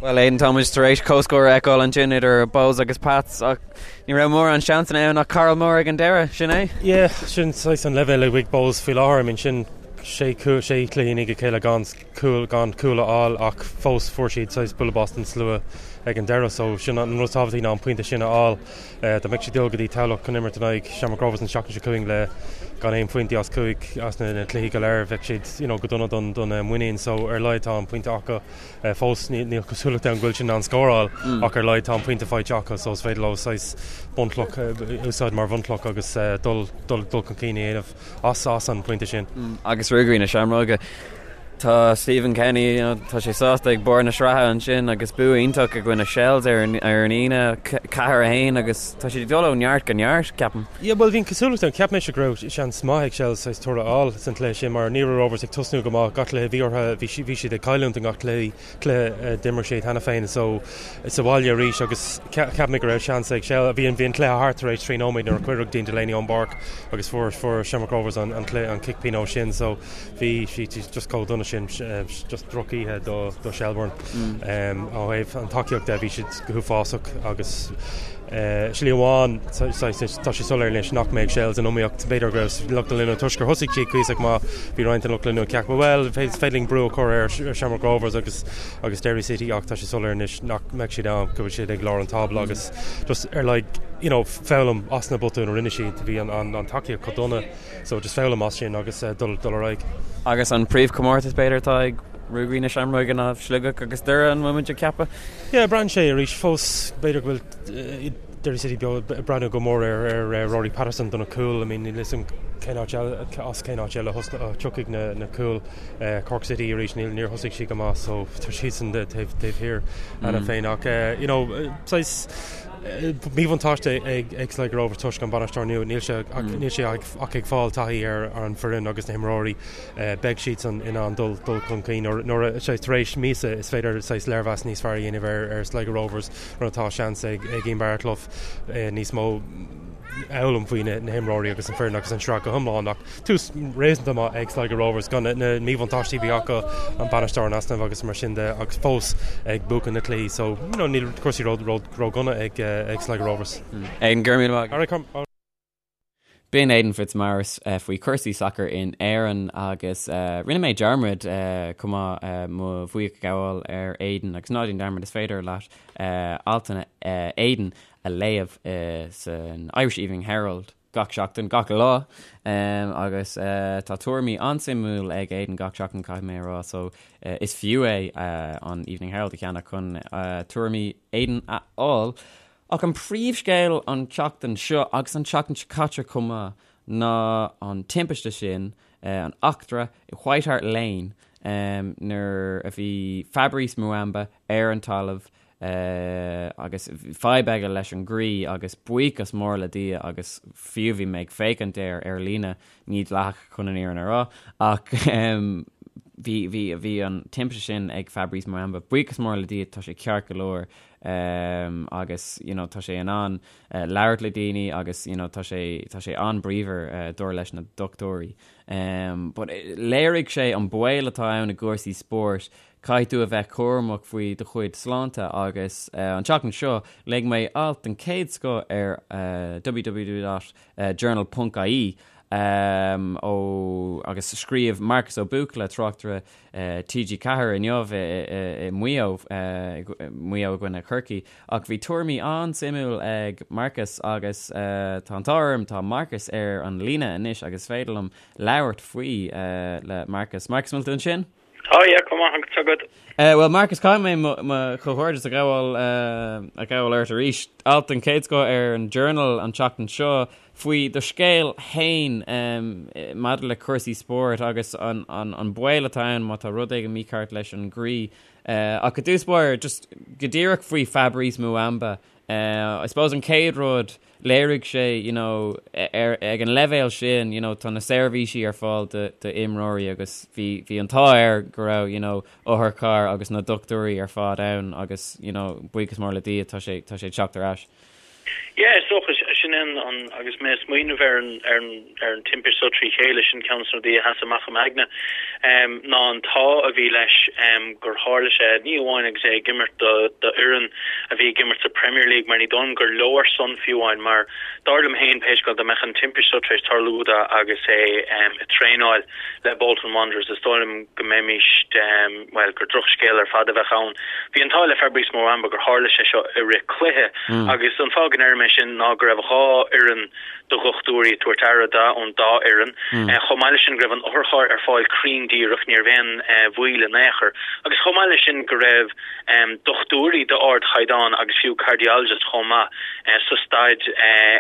Bhuel Aidan, tá muid tar éis comhscór a fheiceáil ansin idir Bohs agus Pats ach ní raibh mórán seansanna ann ach Karl Moore ag an deireadh, sin é? Yeah, sin saghas an leibhéal a bhí ag Bohs faoi láthair. I mean sin sé chúl, sé chluiche i ndiaidh a chéile gan cúl, gan cúl a fháil ach fós fuair siad saghas bualadh bos den slua ag an deireadh so sin an rud is tábhachtaí ná an pointe sin a fháil. Dá mbeadh siad ag dul go dtí Tamhlacht chun imirt in aghaidh Shamrock Rovers an tseachtain seo chugainn le gan aon phointí as chúig as na cluichí go léir bheadh siad you know go dona don don muinín so ar a laghad tá an pointe acu. Fós níl cosúlacht ann go bhfuil siad in ann scóráil ach ar a laghad tá an pointe faighte acu so is féidir leo saghas bunchloch a úsáid mar bhunchloch agus dul dul chun cinn a dhéanamh as as an bpointe sin. Agus Ruagairí na Seamróige, tá Stephen Kenny, you know, tá sé sásta ag barr na sraithe ansin agus bua iontach i gcoinne Shels ar an ar an Aoine, 4-1 agus tá siad ag dul ó neart go neart, ceapaim. Yeah, bhuel bhí an cosúlacht ann, cheap mise go raibh seans maith ag Shels saghas toradh a fháil san cluiche sin mar ní raibh Rovers ag tosnú go maith gach cluiche bhí orthu, bhí bhí siad ag cailliúint i ngach cluiche, cluiche a d'imir siad cheana féin so sa bhaile arís agus cheap mé go raibh seans ag Shels, bhí an bhí an cluiche thart tar éis 3 nóiméad nuair a cuireadh Dean Delaney ón bpáirc agus fuair fuair Shamrock Rovers an an cluiche an cic pionóis sin so bhí sí just chomh dona sin just drochoíche do do Shelbourne. Ó thaobh an tacaíocht de bhí siad go huafásach agus Slí amháin, tá sé soiléir anois nach mbeidh Shels in iomaíocht. B'fhéidir go raibh lucht leanúna toisc gur thosaigh siad cuíosach maith, bhí roinnt den lucht leanúna ag ceapadh, bhuel, is féidir linn brú a chur ar Shamrock Rovers agus agus Derry City ach tá sé soiléir anois nach mbeidh siad ann, go bhfuil siad ag lár an tábla agus just ar like, you know, foghlaim as na botúin a rinne siad. Bhí an, an, an tacaíocht chomh dona so just foghlaim as sin agus dul, dul ar aghaidh. Agus an príomhchomórtas b'fhéidir atá ag Ruagairí na Seamróige ná Sligeach agus Doire, an bhfuil muid ag ceapadh? Yeah, braitheann sé arís fós, b'fhéidir go bhfuil Derry City beo ag breathnú go mór ar ar Rory Patterson do na cúil. I mean, níl 'fhios a'm cén áit eile, as cén áit eile a thiocfaidh na na cúil. Cork City arís, níl níor thosaigh siad go maith so tá siadsan taobh taobh thiar cheana féin ach you know, saghas míbhuntáiste ag ag Sligo Rovers toisc an bainisteoir nua, níl sé níl sé ach ag fáil taithí ar ar an bhfoireann agus na himreoirí. Beidh siadsan in ann dul chun cinn nuair a, saghas, tar éis míosa is féidir saghas léirmheas níos fearr a dhéanamh ar Sligo Rovers nuair atá seans ag Ian Baraclough níos mó a fhoghlaim faoi na himreoirí agus an foireann agus an sraith go hiomlán ach tús réasúnta maith ag Sligo Rovers gan na míbhuntáistí a bhí acu, an bainisteoir in easnamh agus mar sin de agus fós ag buachan na cluichí so you know níl cúrsaí ródhona ag Sligo Rovers. Aidan, go raibh míle maith agat. B'in Aidan Fitzmaurice faoi chúrsaí sacair in Éirinn agus rinne mé dearmad chomh maith mo bhuíochas a ghabháil ar Aidan agus ná déan dearmad is féidir leat altanna Aidan a léamh san Irish Evening Herald gach seachtain, gach lá agus tá tuairimí an-suimiúil ag Aidan gach seachtain caithfidh mé a rá so is fiú é an Evening Herald a cheannach chun tuairimí Aidan a fháil. Ach an príomhscéal an tseachtain seo, agus an tseachtain seo caite chomh maith, ná an timpiste sin, an eachtra i White Hart Lane nuair a bhí Fabrice Muamba ar an talamh agus fadhb aige leis an gcroí agus buíochas mór le Dia agus fiú bhí mé ag féachaint air ar líne, ní dleathach chun an fhírinne a rá, ach bhí, bhí, bhí an timpiste sin ag Fabrice Muamba, buíochas mór le Dia tá sé ceart go leor. agus you know tá sé in ann labhairt le daoine agus you know tá sé tá sé an-bríomhar dar leis na dochtúirí. But léirigh sé an baol atá ann i gcúrsaí spóirt, caithfidh tú a bheith cúramach faoi do chuid sláinte agus an tseachtain seo léigh mé alt den chéad scoth ar www.journal ponc ie ó agus scríobh Marcus Ó Buachalla, tráchtaire TG4 inniu i Maigh Eo, Maigh Eo i gcoinne Chorcaí, ach bhí tuairimí an-suimiúil ag Marcus agus tá an t-ádh orm, tá Marcus ar an líne anois agus is féidir liom labhairt faoi le Marcus. Marcus, an bhfuil tú ansin? Tá, yeah, chomh maith agus agat. Bhuel, Marcus, caithfidh mé mo chomhghairdeas a ghabháil a ghabháil ort arís. Alt den chéad scoth ar an Journal an tseachtain seo. faoi do scéal fhéin maidir le cúrsaí spóirt agus an baol atá ann má tá rud éigin mícheart leis an gcroí. Ach i dtús báire, just go díreach faoi Fabrice Muamba, I suppose an chéad rud, léirigh sé, you know, ar, ag an leibhéal sin, you know, tá na seirbhísí ar fáil do, d'imreoirí agus bhí, bhí an t-ádh air go raibh, you know, otharcharr agus na dochtúirí ar fad ann agus, you know, buíochas mór le Dia, tá sé, tá sé ag teacht ar ais. Yeah, is dócha. sin é an, agus mé ag smaoineamh ar an, ar an, ar an timpiste seo trí chéile, sin ceann de na rudaí a sheas amach i m'aigne, ná an t-ádh a bhí leis gur tharla sé, ní amháin agus é ag imirt do, do fhoireann a bhí ag imirt sa Premier League, mar ní dóigh liom gur leor san fiú amháin, mar dar liom féin, pé scéal, dá mbeadh an timpiste seo tar éis tarlú do agus é ag traenáil le Bolton Wanderers, is dóigh liom go mbeimis, bhuel, gur drochscéal ar fad a bheadh ann. Bhí an t-ádh le Fabrice Muamba gur tharla sé seo i rith cluiche agus an fáth go ndeirim é sin ná go raibh 2 fhoireann de dhochtúirí ag tabhairt aire do ón dá fhoireann. Chomh maith leis sin go raibh an otharcharr ar fáil cruinn díreach, ní raibh aon mhoill in aon chor. Agus chomh maith leis sin go raibh dochtúirí d'ardchaighdeán agus fiú cardiologist chomh maith sa staid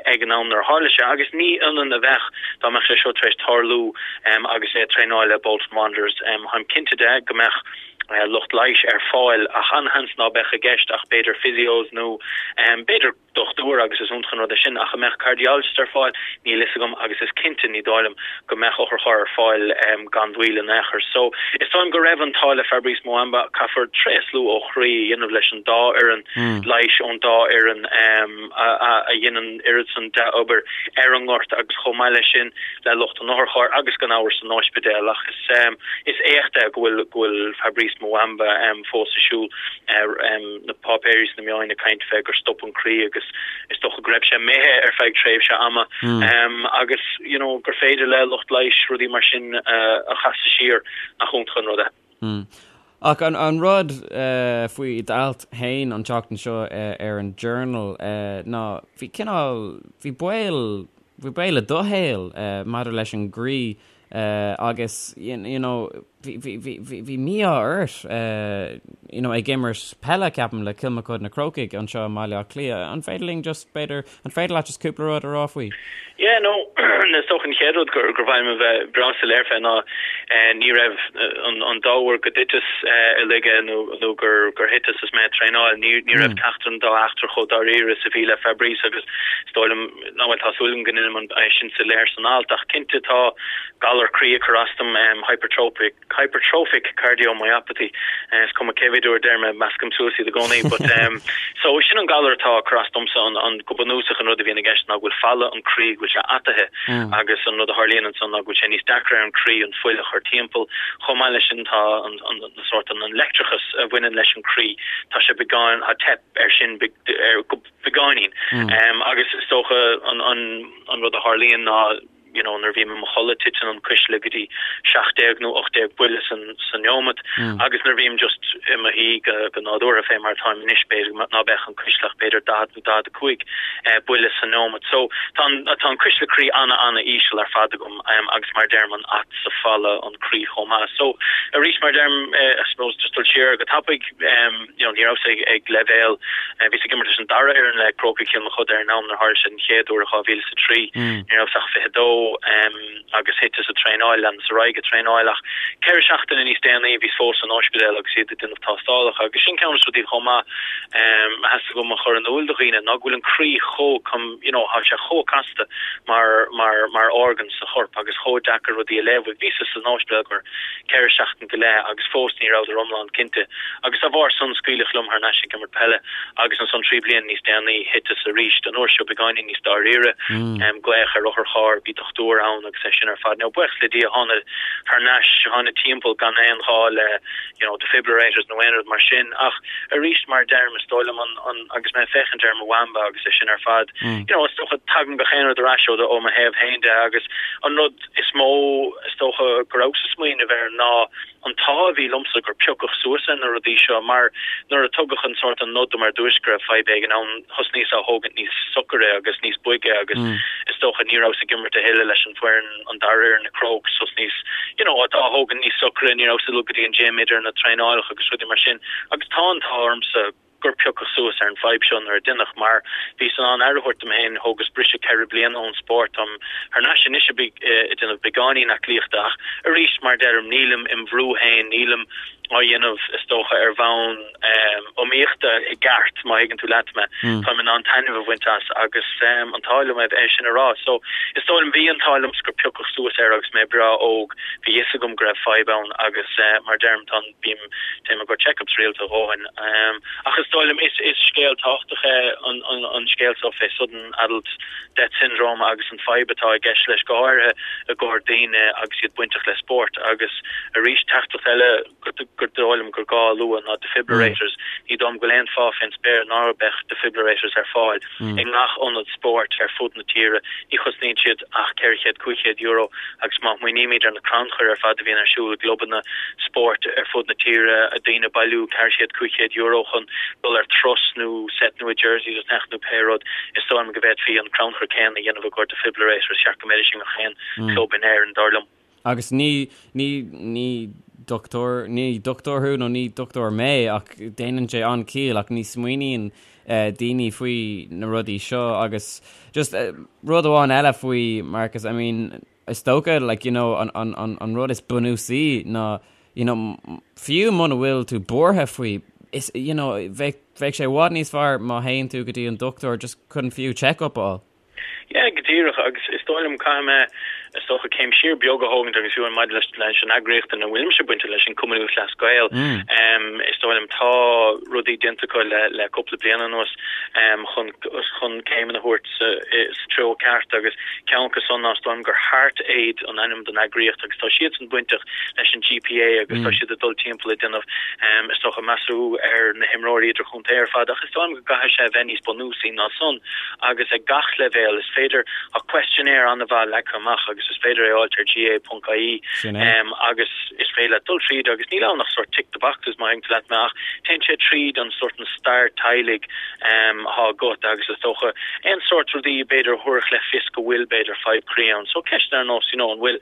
ag an am nuair a tharla sé. Agus ní ionann a bheadh dá mbeadh sé seo tar éis tarlú agus é ag traenáil le Bolton Wanderers. Táim cinnte de go mbeadh lucht leighis ar fáil ach an-sheans ná beadh i gceist ach b'fhéidir physios nó b'fhéidir dochtúir agus is iontach an rud é sin ach an mbeadh cardiologist ar fáil níl fhios agam agus is cinnte ní dóigh liom go mbeadh otharcharr ar fáil gan mhoill in aon chor. So is dóigh liom go raibh an t-ádh le Fabrice Muamba caithfear tréaslú ó chroí a dhéanamh leis an dá fhoireann leighis ón dá fhoireann a dhein an oiread san dea-obair ar an ngort agus chomh maith leis sin le lucht an otharchairr agus gan amhras san ospidéal ach is is éacht é go bhfuil go bhfuil Fabrice Muamba fós ag siúl. Na páipéirí is na meáin ag caint fé gur stop an croí agus is dócha go raibh sé imithe ar feadh tréimhse ama agus you know gur féidir le lucht leighis rudaí mar sin a chasadh siar, nach iontach an rud é. Ach an rud faoi d'alt féin an tseachtain seo ar an Journal ná bhí cineál, bhí baol, bhí baol i do shaol maidir leis an gcroí agus you know bhí, bhí, bhí, bhí, bhí mí-ádh ort you know ag imirt peile ceapaim le Kilmacud na Crócaigh anseo i mBaile Átha Cliath. An féidir linn just b'fhéidir, an féidir leat just cúpla rud a rá faoi? Yeah no is dócha an chéad rud gur gur mhaith liom a bheith breá soiléir fé ná ní raibh an an dá uair go dtiteas i laige nó nó gur gur thiteas is mé ag traenáil ní ní raibh ceachtar den dá eachtra chomh dáiríre is a bhí le Fabrice agus is dóigh liom Nó bhuel, tá súil agam go ndeinim é sin soiléir san alt, ach cinnte tá galar croí ag cur as dom, hypertrophic, hypertrophic cardiomyopathy, is cuma cé mhéad uair a deirim é, meascaim suas iad i gcónaí, but so sin an galar atá ag cur as domsa, an, an, go bunúsach an rud a bhíonn i gceist ná go bhfuil falla an croí, go bhfuil sé ataithe agus an rud a tharlaíonn ansan ná go bhfuil sé níos deacra ar an croí an fuil a chur timpeall, chomh maith leis sin tá an, an, an sórt an, an leictreachas a bhaineann leis an croí, tá sé beagán, tá teip air sin ar, go. beagáinín. Agus is dócha an rud a tharlaíonn ná you know nuair a bhím i mo chodladh titeann an cuisle go dtí 17 nó 18 buille san sa neomat agus nuair a bhím just i mo shuí go go nádúrtha fé mar atáim anois b'fhéidir ná beadh an cuisle ach b'fhéidir 40 nó 45 buille sa neomat. So tá an tá an cuisle croí ana ana íseal ar fad agam agus mar a deirim an at sa falla an croí chomh maith. So arís mar a deirim I suppose just dul siar go tapaidh you know, ní rabhas ag leibhéal, bhíos ag imirt leis an dara fhoireann le Crócaigh Chill Mochuda ar an am nuair a tharla sé den chéad uair i 2003. Ní rabhas ach 22 agus thiteas ag traenáil, leanas ar aghaidh ag traenáil ach ceithre seachtaine níos déanaí bhíos fós san ospidéal agus iad ag déanamh tástálacha agus sin ceann de na rudaí chomh maith a theastaigh uaim a chur in iúl do dhaoine ná go bhfuil an croí chomh, you know, tá sé chomh casta mar, mar, mar organ sa chorp agus chomh deacair rudaí a léamh. Bhíos san ospidéal gur ceithre seachtain go leith agus fós ní rabhadar iomlán cinnte agus dá bharr san scaoileadh liom thar n-ais ag imirt peile agus ansan 3 bliana níos déanaí thiteas arís, an uair seo beagáinín níos dáiríre, glaoch ar otharcharr, bhí dochtúir ann agus é sin ar fad. Now buíochas le Dia thánag thar n-ais, thánag timpeall gan aon ghá le you know defibrillators nó aon rud mar sin ach arís mar a deirim is dóigh liom an, an, agus mé ag féachaint ar Mwamba agus é sin ar fad, you know is dócha tagann gach aon rud ar ais ó ó mo thaobh féin de agus an rud is mó, is dócha, go rabhas ag smaoineamh air ná an t-ádh a bhí liomsa gur piocadh suas ar na rudaí seo mar nuair a tugadh an sórt an nod dom ar dtúis go raibh fadhb éigin ann, thosnaíos á thógaint níos socaire agus níos boige agus is dócha ní rabhas ag imirt a thuilleadh leis an bhfoireann, an dara fhoireann na Crokes, thosnaíos you know á thógaint níos socaire, ní rabhas ag dul go dtí an gym idir na traenálacha agus rudaí mar sin agus tá an t-ádh ormsa. gur piocadh suas ar an bhfadhb seo nuair a deineadh, mar bhíos in ann aire a thabhairt dom féin, thógas briseadh ceithre bliana ón spórt, táim thar n-ais anois ag déanamh beagáinín aclaíochta ach arís, mar a deirim, nílim im bhrú féin, nílim á dhéanamh is dócha ar bhonn iomaíochta i gceart, má thuigeann tú leat mé. Táim in ann taitneamh a bhaint as agus an t-ádh liom é sin a rá. So is dóigh liom, bhí an t-ádh liomsa gur piocadh suas air agus mé breá óg, bhí fhios agam go raibh fadhb ann agus mar a deirim tá an, bím, téim i gcomhair checkups rialta a dhóthain. Ach is dóigh liom is, is scéal tábhachtach é an, an, an scéal seo fé sudden adult death syndrome agus an fadhb atá i gceist leis, go háirithe i gcomhair daoine agus iad bainteach le spórt. Agus arís, teachtaireacht eile gur dóigh liom gur gá a lua ná defibrillators. Ní dóigh liom go bhfuil aon fáth fén spéir ná beadh defibrillators ar fáil i ngach ionad spóirt ar fud na tíre. Ní chosnaíonn siad ach 400, €500 agus má smaoinímid ar na crannchuir ar fad a bhíonn ar siúl i gclubanna spóirt ar fud na tíre, daoine ag bailiú 400, €500 chun dul ar turas nó set nua jerseys a cheannach nó pé rud, is dóigh liom go bhféadfaí an crannchur céanna a dhéanamh i gcomhair defibrillators. Cheart go mbeidís i ngach aon club in Éirinn, dar liom. Agus ní, ní, ní dochtúir, ní dochtúir thú nó ní dochtúir mé ach déanann sé an-chiall ach ní smaoiníonn daoine faoi na rudaí seo agus just rud amháin eile faoi Marcus, I mean, is dócha like, you know, an, an, an, an rud is bunúsaí ná you know, fiú muna bhfuil tú buartha faoi, is, you know, bheadh, bheadh sé i bhfad níos fearr má théann tú go dtí an dochtúir just chun fiú check-up a fháil. Yeah, go díreach, agus is dóigh liom, caithfidh mé, is dócha, céim siar beag a thógaint agus fiú maidir leis leis an eagraíocht ina bhfuilimse bainte leis, an Cumann Lúthchleas Gael, is dóigh liom, tá rudaí déanta acu le le cúpla bliain anuas chun chun céimeanna a thabhairt sa sa treo ceart agus ceann acu san ná is dóigh liom gur Heart Aid an ainm don eagraíocht agus tá siadsan bainteach leis an GPA agus tá siad ag dul timpeall ag déanamh is dócha measúnú ar na himreoirí idirchontae ar fad ach is dóigh liom go gcaithfidh sé a bheith níos bunúsaí ná san. agus ag gach leibhéal. Is féidir, tá questionnaire an-mhaith leagtha amach agus is féidir é a fháilt ar gaa.ie agus is féidir leat dul tríd agus níl ann ach sórt tick the boxes má thuigeann tú leat mé ach téann sé tríd an sórt an stair teaghlaigh atá agat agus is dócha aon sórt rudaí b'fhéidir a thabharfadh le fios go bhfuil b'fhéidir fadhb croí ann. So ceisteanna ar nós you know an bhfuil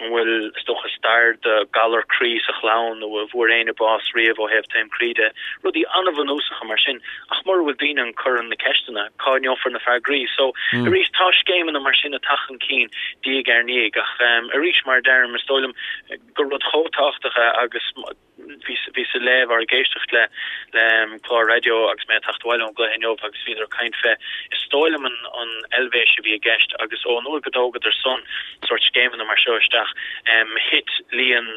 an bhfuil is dócha stair de galar croí sa chlann nó an bhfuair éinne bás riamh ó thaobh taom croí de, rudaí an-bhunúsacha mar sin. Ach mura bhfuil daoine ag cur na ceisteanna, cá ngeofar na freagraí? So, arís, tá scéimeanna mar sin ag teacht chun cinn diaidh ar ndiaidh ach arís, mar a deirim, is dóigh liom gur rud chomh tábhachtach é agus bhíos ag léamh or ag éisteacht le le clár raidió agus mé ag teacht abhaile ón gcluiche inniu agus bhíodar ag caint fé, is dóigh liom an an Eilvéis a bhí i gceist agus ón uair go dtógadar san sórt scéimeanna mar seo isteach, thit líon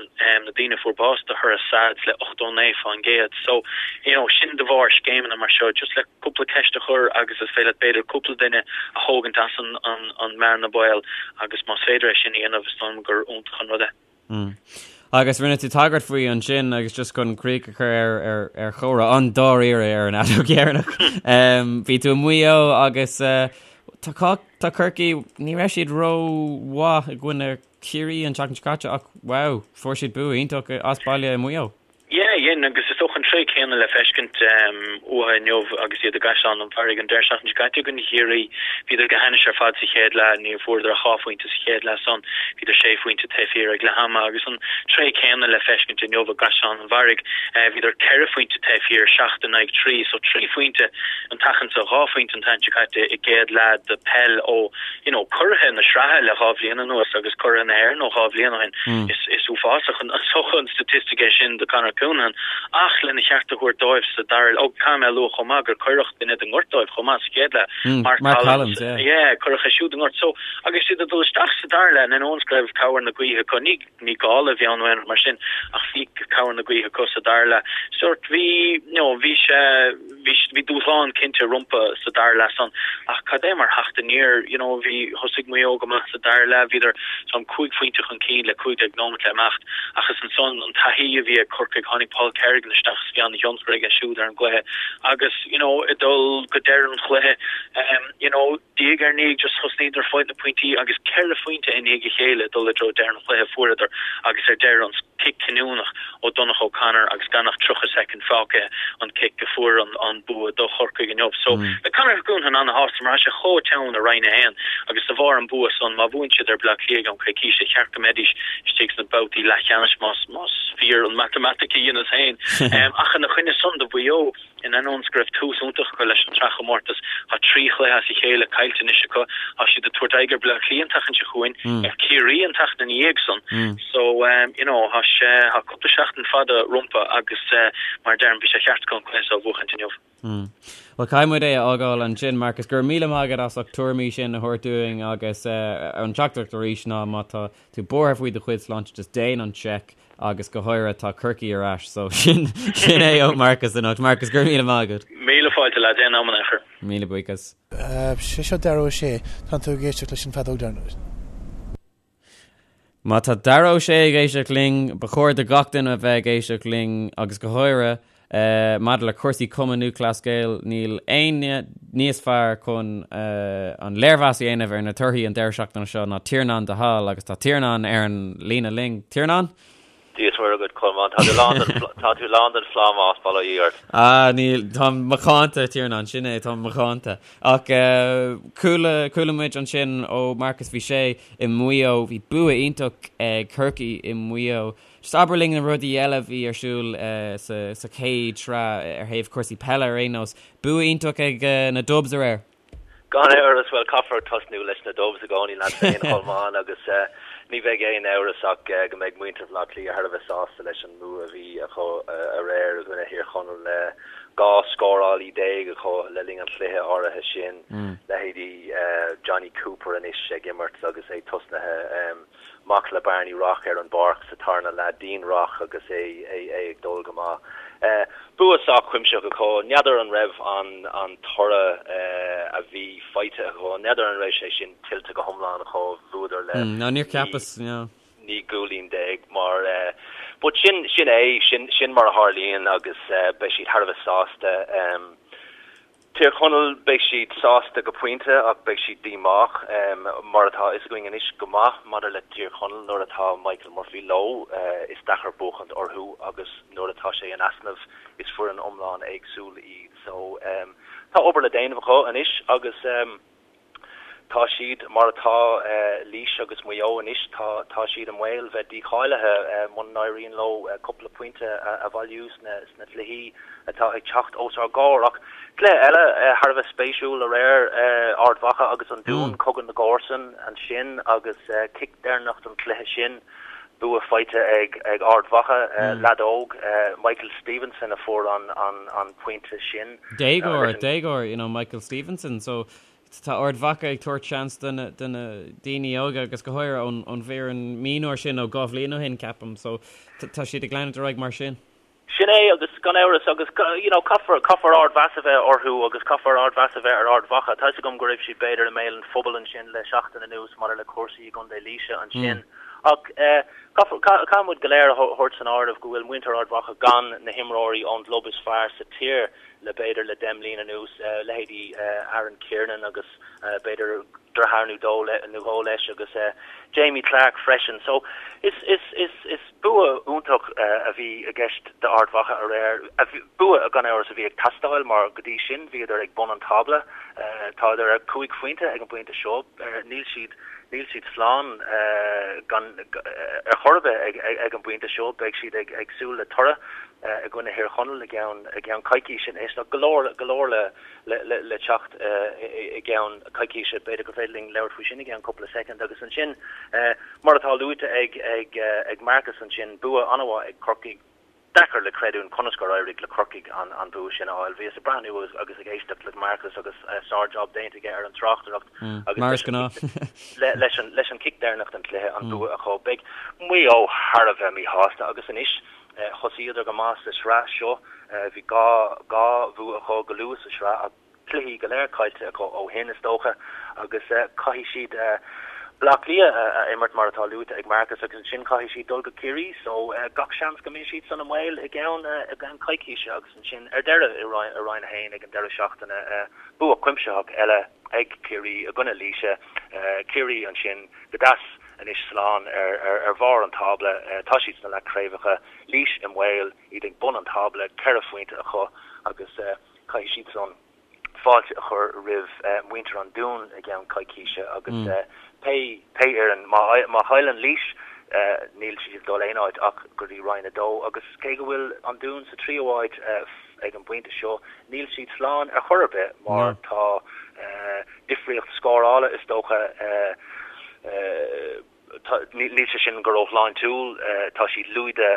na daoine a fuair bás de thoradh SADS le 89%. So, you know, sin de bharr scéimeanna mar seo, just le cúpla ceist a chur agus is féidir leat b'fhéidir cúpla duine a thógaint as an, an, an mbearna baoil agus más féidir é sin a dhéanamh is dóigh liom gur iontach an rud é. Mm. Agus rinne tú tagairt faoi ansin agus just chun críoch a chur ar, ar, ar chomhrá an-dáiríre ar an fheadóg dheireanach. Um, bhí tú i Maigh Eo agus uh, tá, tá Corcaigh, ní raibh siad ró-mhaith i gcoinne Ciarraí an tseachtain seo caite ach wow, fuair siad bua iontach as baile i Maigh Eo. Yeah, dhein, agus is dócha an tréith céanna le feiscint uathu inniu agus iad i gCaisleán an Bharraigh an deireadh seachtaine seo caite i gcoinne Chiarraí. Bhíodar go hainnis ar fad sa chéad leath, ní fuaireadar ach dhá phointe sa chéad leath san, bhíodar sé phointe taobh thiar ag leath ama agus an tréith céanna le feiscint inniu i gCaisleán an Bharraigh. Bhíodar ceithre phointe taobh thiar, seacht in aghaidh trí, so trí phointe an tseachtain seo, dhá phointe an tseachtain seo caite i gcéad leath de peil ó you know, curaithe na sraithe le 2 bhliain anuas agus curaithe na hÉireann ó 2 bhliain ó shin. Is, is uafásach an, is dócha an staitistic é sin do Conor Counihan ach lena cheart a thabhairt dóibh sa dara, ó, caithfidh mé a lua chomh maith gur cuireadh duine den ngort dóibh chomh maith sa chéad leath, Mark, Mark Collins, yeah. Yeah, cuireadh é siúd i ngort. So, agus iad ag dul isteach sa dara leath, in ainneoin go raibh cabhair na gaoithe acu, ní, ní gála a bhí ann nó aon rud mar sin ach bhí cabhair na gaoithe acu sa dara leath. Sórt, bhí, you know, bhí sé, Bhí, bhí dúshlán cinnte rompu sa dara leath san ach cad é mar theacht aniar, you know, bhí, thosaigh Maigh Eo go maith sa dara leath, bhíodar some 5 phointe chun cinn le 15 nóiméad le imeacht ach is ansan an taithí a bhí ag Corcaigh, tháinig Paul Kerrigan isteach is bhí an-thionchar aige siúd ar an gcluiche agus, you know, ag dul go deireadh an chluiche, you know, diaidh ar ndiaidh just thosnaíodar ag fáilt na pointí agus ceithre phointe i ndiaidh a chéile ag dul i dtreo deireadh an chluiche fuaireadar agus ar deireadh an cic cinniúnach ó Donncha O'Connor agus gan ach 30 soicind fágtha an cic a fuair an bua do Chorcaigh inniu. So beidh Conor Counihan ana-shásta mar tá sé chomh teann i Roinn 1 agus de bharr an bua san má bhuann siad ar Bleá Cliath i gceann coicíse cheart go mbeidís istigh sna babhtaí leathcheannais más más fíor an matamaitic a dheineas féin. Ach ina choinne san do Mhaigh Eo. In ainneoin is go raibh tús iontach acu leis an tsraithchomórtas, tá 3 chluiche as a chéile caillte anois acu. Tá siad ag tabhairt aghaidh ar Bleá Cliath an tseachtain seo chugainn, ar Ciarraí an tseachtain ina dhiaidh san. So, you know, tá sé, tá cúpla seachtain fada rompu agus mar a deirim, bhí sé ceart acu an cluiche seo a bhuachaint inniu. Bhuel, caithfidh muid é a fhágáil ansin, Marcus. Go raibh míle maith agat as ucht tuairimí sin a thabhairt dúinn agus an teachtaireacht arís ná má tá tú buartha faoi do chuid sláinte, just déan an seic agus go háirithe tá Corcaigh ar ais so sin sin é ó Marcus anocht. Marcus, go raibh míle maith agat. Míle fáilte lads, aon am in aon chor. Míle buíochas. Sé seo Dara Ó Sé, tánn tú ag éisteacht leis an bhfeadóg deireanach. Má tá Dara Ó Sé ag éisteacht linn, ba chóir do gach duine a bheith ag éisteacht linn agus go háirithe maidir le cúrsaí Cumann Lúthchleas Gael, níl éinne níos fearr chun an léirmheas a dhéanamh ar na torthaí an deireadh seachtaine seo ná Tiarnán de hAll agus tá Tiarnán ar an líne linn. Tiarnán? Dia is Muire agat, Colmán. Tá tú lán den, tá tú lán den phlámás, bail ó Dhia ort. Ah, níl, táim macánta, Tiarnán, sin é, táim macánta. Ach chuala, chuala muid ansin ó Marcus, bhí sé i Maigh Eo, bhí bua iontach ag Corcaigh i Maigh Eo. Just abair linn na rudaí eile a bhí ar siúl sa, sa chéad sraith ar thaobh cúrsaí peile ar aon nós. Bua iontach ag na Dubs aréir. Gan amhras, bhuel, caithfear tosnú leis na Dubs i gcónaí leat féin, a Cholmáin, agus ní bheidh aon amhras ach go mbeidh muintir Bhaile Átha Cliath thar a bheith sásta leis an mbua a bhí acu aréir i gcoinne Thír Chonaill. 12 scórálaí acu le linn an chluiche áirithe sin, leithéidí Jonny Cooper anois ag imirt agus é tosnaithe. Mac le Barney Rock ar an bpáirc sa tarna leath, Dean Rock agus é ag dul go maith. Bua sách cuimsitheach acu. N'fheadar an raibh an toradh a bhí faighte acu, n'fheadar an raibh sé sin tuillte go hiomlán acu. Bhuadar le No, níor cheapas, 19 gcúilín mar but sin sin é, sin sin mar a tharlaíonn agus beidh siad thar a bheith sásta. Tír Chonaill, beidh siad sásta go pointe ach beidh siad díomách, mar atá a fhios againn anois go maith maidir le Tír Chonaill, nuair atá Michael Murphy leo is deacair buachaint orthu agus nuair atá sé in easnamh is foireann iomlán éagsúil iad. So tá obair le déanamh acu anois agus. Tá siad mar atá, Laois agus Maigh Eo anois, tá tá siad i mbaol bheith dícháilithe muna n-éiríonn leo cúpla pointe a bhailiú sna sna cluichí atá ag teacht os ár gcomhair. Ach cluiche eile thar a bheith spéisiúil aréir, Ard Mhacha agus an Dún, cogadh na gcomharsan ansin agus cic deireanach don chluiche sin, bua faighte ag ag Ard Mhacha, leaid óg, Michael Stevenson a fuair an an an pointe sin. Déagóir, déagóir, you know, Michael Stevenson, so Tá Ard Mhacha ag tabhairt seans do na daoine óga agus go háirithe ón bhfoireann mionúir sin ó 2 bhliain ó shin, ceapaim. So tá siad ag leanúint ar aghaidh mar sin. Sin é agus gan amhras agus you know caithfear, caithfear ardmheas a bheith orthu agus caithfear ardmheas a bheith ar Ard Mhacha. Tá 'fhios agam go raibh siad b'fhéidir i mbéal an phobail ansin le seachtain anuas maidir le cúrsaí i gContae Laoise ansin ach caithfear, caithfidh muid go léir a thabhairt san áireamh go bhfuil muintir Ard Mhacha gan na himreoirí ón gclub is fearr sa tír le b'fhéidir le 10 mbliana anuas, leithéidí Aaron Kiernan agus b'fhéidir deartháir nó dó nó dhó leis agus Jamie Clarke freisin. So is is is is bua iontach a bhí i gceist d'Ard Mhacha aréir, bua gan amhras a bhí ag teastáil mar go dtí sin bhíodar ag bun an tábla. Tádar ar chúig phointe ag an bpointe seo, níl siad níl siad slán gan ar chor ar bith ag ag an bpointe seo, beidh siad ag ag súil le toradh. i gcoinne Thír Chonaill i gceann i gceann coicíse anois. Tá go leor go leor le le le teacht i gceann coicíse. B'fhéidir gur féidir linn labhairt faoi sin i gceann cúpla soicind. Agus ansin, mar atá luaite ag ag ag Marcus ansin, bua an-mhaith ag Corcaigh. Deacair le creidiúint conas gur éirigh le Corcaigh an an bua sin a fháil. Bhíos ag breathnú agus agus ag éisteacht le Marcus agus sár-jab déanta aige ar an tráchtaireacht agus Mar is gnáth. leis an leis an cic deireanach den chluiche an bua acu. Beidh Maigh Eo thar a bheith míshásta agus anois Thosaíodar go maith sa sraith seo. Bhí 2 bhua acu go luath sa sraith ach cluichí go léir caillte acu ó shin, is dócha, agus caithfidh siad Baile Átha Cliath a imirt, mar atá luaite ag Marcus, agus ansin caithfidh siad dul go Ciarraí. So gach seans go mbeidh siad san i mbaol i gceann coicíse agus ansin ar deireadh i Roinn 1 ag an deireadh seachtaine, bua cuimsitheach eile ag Ciarraí i gcoinne Laoise. Ciarraí ansin go deas. Anois slán ar bharr an tábla, tá siad sna leathchraobhacha. Laois i mbaol, iad ag bun an tábla, 4 phointe acu agus caithfidh siad san fáilte a chur roimh mhuintir an Dúin i gceann coicíse agus pé pé fhoireann, má chailleann Laois. Níl siad ag dul aon áit ach go dtí Roinn 2 agus cé go bhfuil an Dún sa tríú háit ag an bpointe seo, níl siad slán ar chor ar bith mar tá difríocht scórála is dócha, níl sé sin go róshláintiúil, tá siad lúide,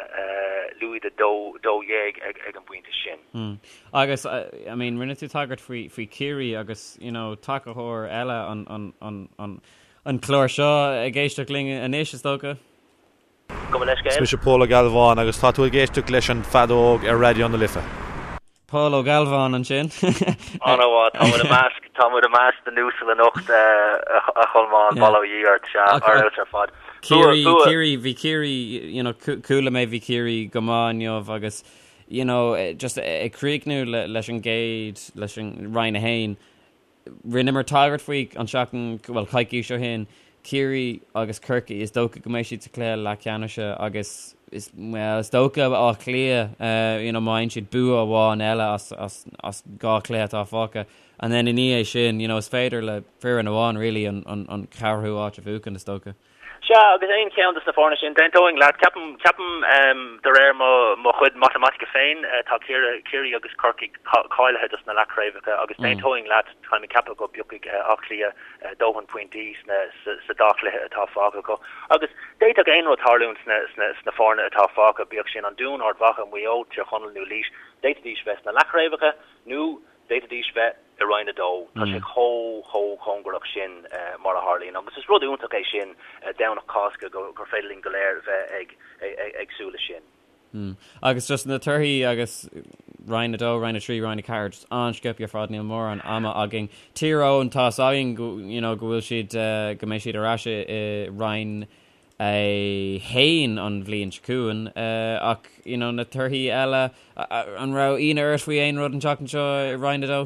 lúide 12 ag an bpointe sin. Agus, I mean, rinne tú tagairt faoi, faoi Ciarraí agus, you know, tacaitheoir eile an, an, an, an, an clár seo ag éisteacht linn anois, is dócha. Gabh mo leithscéal. Is mise Pól Ó Gealbháin agus tá tú ag éisteacht leis an Feadóg ar Raidió na Life. Pól Ó Gealbháin ansin. An-mhaith, tá muid i measc, tá muid i measc na n-uasal anocht, a Cholmáin, bail ó Dhia ort, sea, ar fheabhas ar fad. Ciarraí, Ciarraí, bhí Ciarraí, you know, chuala mé bhí Ciarraí go maith inniu agus, you know, just ag críochnú leis an gcéad, leis an Roinn 1, Rinneamar tagairt faoi an tseachtain, bhuel, coicís ó shin, Ciarraí agus Corcaigh, is dócha go mbeidh siad sa chluiche leathcheannais agus is, bhuel, is dócha Áth Cliath, you know, má fhaigheann siad bua amháin eile as, as, as 2 chluiche atá fágtha and then i ndiaidh sin, you know, is féidir le foireann amháin really an, an, an ceathrú háit a bhuachan, is dócha. Sea, agus aon cheann de na foirne sin, d'aontóinn leat. Ceapaim, ceapaim, de réir mo, mo chuid matamaitice féin, tá Ciarraí, Ciarraí agus Corcaigh cáilithe dos na leathchraobhacha agus d'aontóinn leat, táim ag ceapadh go bpiocfaidh Áth Cliath dóthain pointí sna, sa dá chluiche atá fágtha acu. Agus d'fhéadfadh aon rud tarlúint sna, sna, sna foirne atá fágtha, bíodh sin an Dún, Ard Mhacha, Maigh Eo, Tír Chonaill nó Laois, d'fhéadfaidís bheith sna leathchraobhacha nó D'fhéadfaidís bheith i Roinn 2. Tá sé chomh, chomh cóngarach sin mar a tharlaíonn. Agus is rud iontach é sin, Domhnach Cásca, gur féidir linn go léir bheith ag, ag súil leis sin. Agus just na torthaí agus Roinn 2, Roinn 3, Roinn 4, just an-sciobtha ar fad, níl mórán ama againn. Tír Eoghain, tá 'fhios againn go, you know, go bhfuil siad, go mbeidh siad ar ais i Roinn 1 an bhliain seo chugainn ach you know na torthaí eile, an raibh ionadh ort faoi aon rud an tseachtain seo i Roinn 2?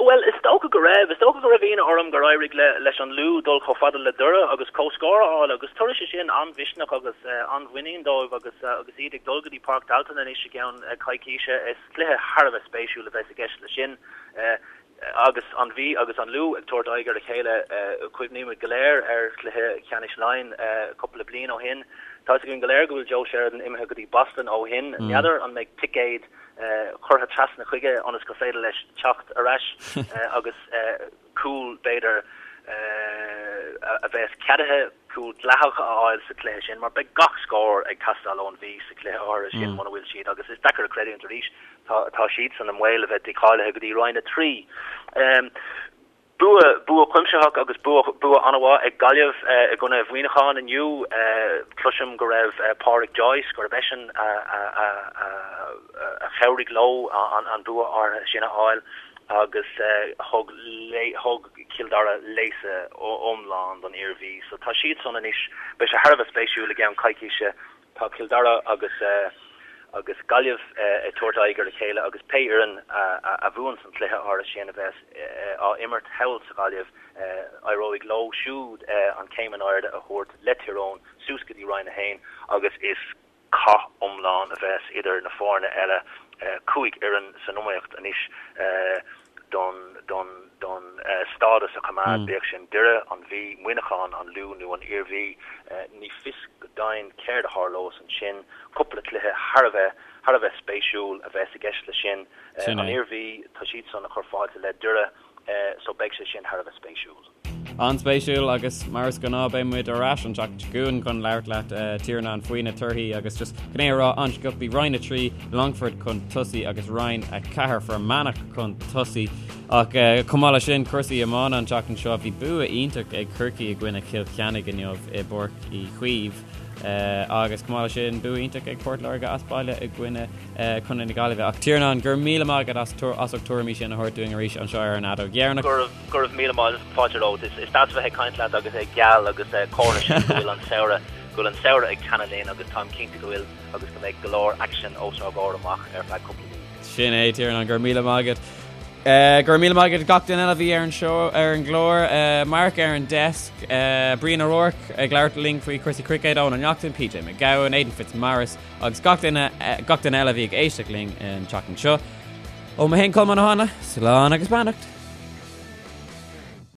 Bhuel, is dócha go raibh. Is dócha go raibh ionadh orm gur éirigh leis an Lú dul chomh fada le Doire agus comhscór a fháil agus tabharfaidh sé sin an-mhisneach agus an-mhuinín dóibh agus agus iad ag dul go dtí Páirc Tailteann anois i gceann coicíse. Is cluiche thar a bheith spéisiúil a bheas i gceist leis sin. Agus an Mhí agus an Lú ag tabhairt aghaidh ar a chéile, cuimhnímid go léir ar chluiche ceannais Laighean cúpla bliain ó shin. Tá 'fhios againn go léir go bhfuil Joe Sheridan imithe go dtí Boston ó shin. N'fheadar an mbeidh ticéad curtha trasna chuige ionas gur féidir leis teacht ar ais agus cúl, b'fhéidir, a bheas ceadaithe, cúl dleathach a fháil sa chluiche sin mar beidh gach scór ag teastáil ón Mhí sa chluiche áirithe sin muna bhfuil siad agus is deacair a chreidiúint arís Tá, tá siadsan i mbaol a bheith dícháilithe go dtí Roinn 3. Bua, bua cuimsitheach agus bua, bua an-mhaith ag Gaillimh i gcoinne Mhuineacháin inniu. Cloisim go raibh Pádraic Joyce, gurb eisean a, a, a, a, a chabhraigh leo an, an bua áirithe sin a fháil agus thug, thug Cill Dara léasadh iomlán don Iarmhí. So tá siadsan anois, beidh sé thar a bheith spéisiúil i gceann coicíse Tá Cill Dara agus agus Gaillimh ag tabhairt aghaidh ar a chéile agus pé fhoireann a bhuann san chluiche áirithe sin a bheas á imirt thall sa Ghaillimh, éireoidh leo siúd an chéim in airde a thabhairt le Tír Eoghain suas go dtí Roinn 1 agus is cath iomlán a bheas idir na foirne eile, 5 fhoireann san iomaíocht anois. don don don stádas a choimeád, bíodh sin Doire, an Mhí, Muineachán, an Lú nó an Iarmhí. Ní fios go deimhin céard a tharlós ansin. Cúpla cluiche thar a bheith thar a bheith spéisiúil a bheas i gceist leis sin. An Iarmhí, tá siadsan ag cur fáilte le Doire so beidh sé sin thar a bheith spéisiúil. An-spéisiúil agus mar is gnáth beidh muid ar ais an tseachtain seo chugainn chun labhairt leat Tiarnán faoi na torthaí agus just chun é a rá an-sciobtha Roinn 3 Longfort chun tosaigh agus Roinn 4 Fear Manach chun tosaigh ach chomh maith leis sin cúrsaí iomána an tseachtain seo bhí bua iontach ag Corcaigh i gcoinne Chill Chainnigh inniu i bPáirc Uí Chaoimh agus chomh maith leis sin bua iontach ag Port Láirge as baile i gcoinne Contae na Gaillimhe ach Tiarnán go raibh míle maith agat as as ucht tuairimí sin a thabhairt dúinn arís anseo ar an Fheadóg Dheireanach. Go raibh Go raibh míle maith fáilte romhat. Is deas a bheith ag caint leat agus é geal agus comhartha sin go bhfuil an samhradh, go bhfuil an samhradh ag teannadh linn agus táim cinnte go bhfuil agus go mbeidh go leor aicsin os ár gcomhair amach ar feadh cúpla mí. Sin é, Tiarnán, go raibh míle maith agat. Go raibh míle maith agat gach duine eile a bhí ar an seó, ar an gclár, Mark ar an desk, Brian O'Rourke ag labhairt linn faoi chúrsaí cruicéid, Eoin Ó Neachtain, PJ Mac Gabhann, Aidan Fitzmaurice agus gach duine, gach duine eile a bhí ag éisteacht linn an tseachtain seo. Ó mé féin Colmán Ó Háinle, slán agus beannacht.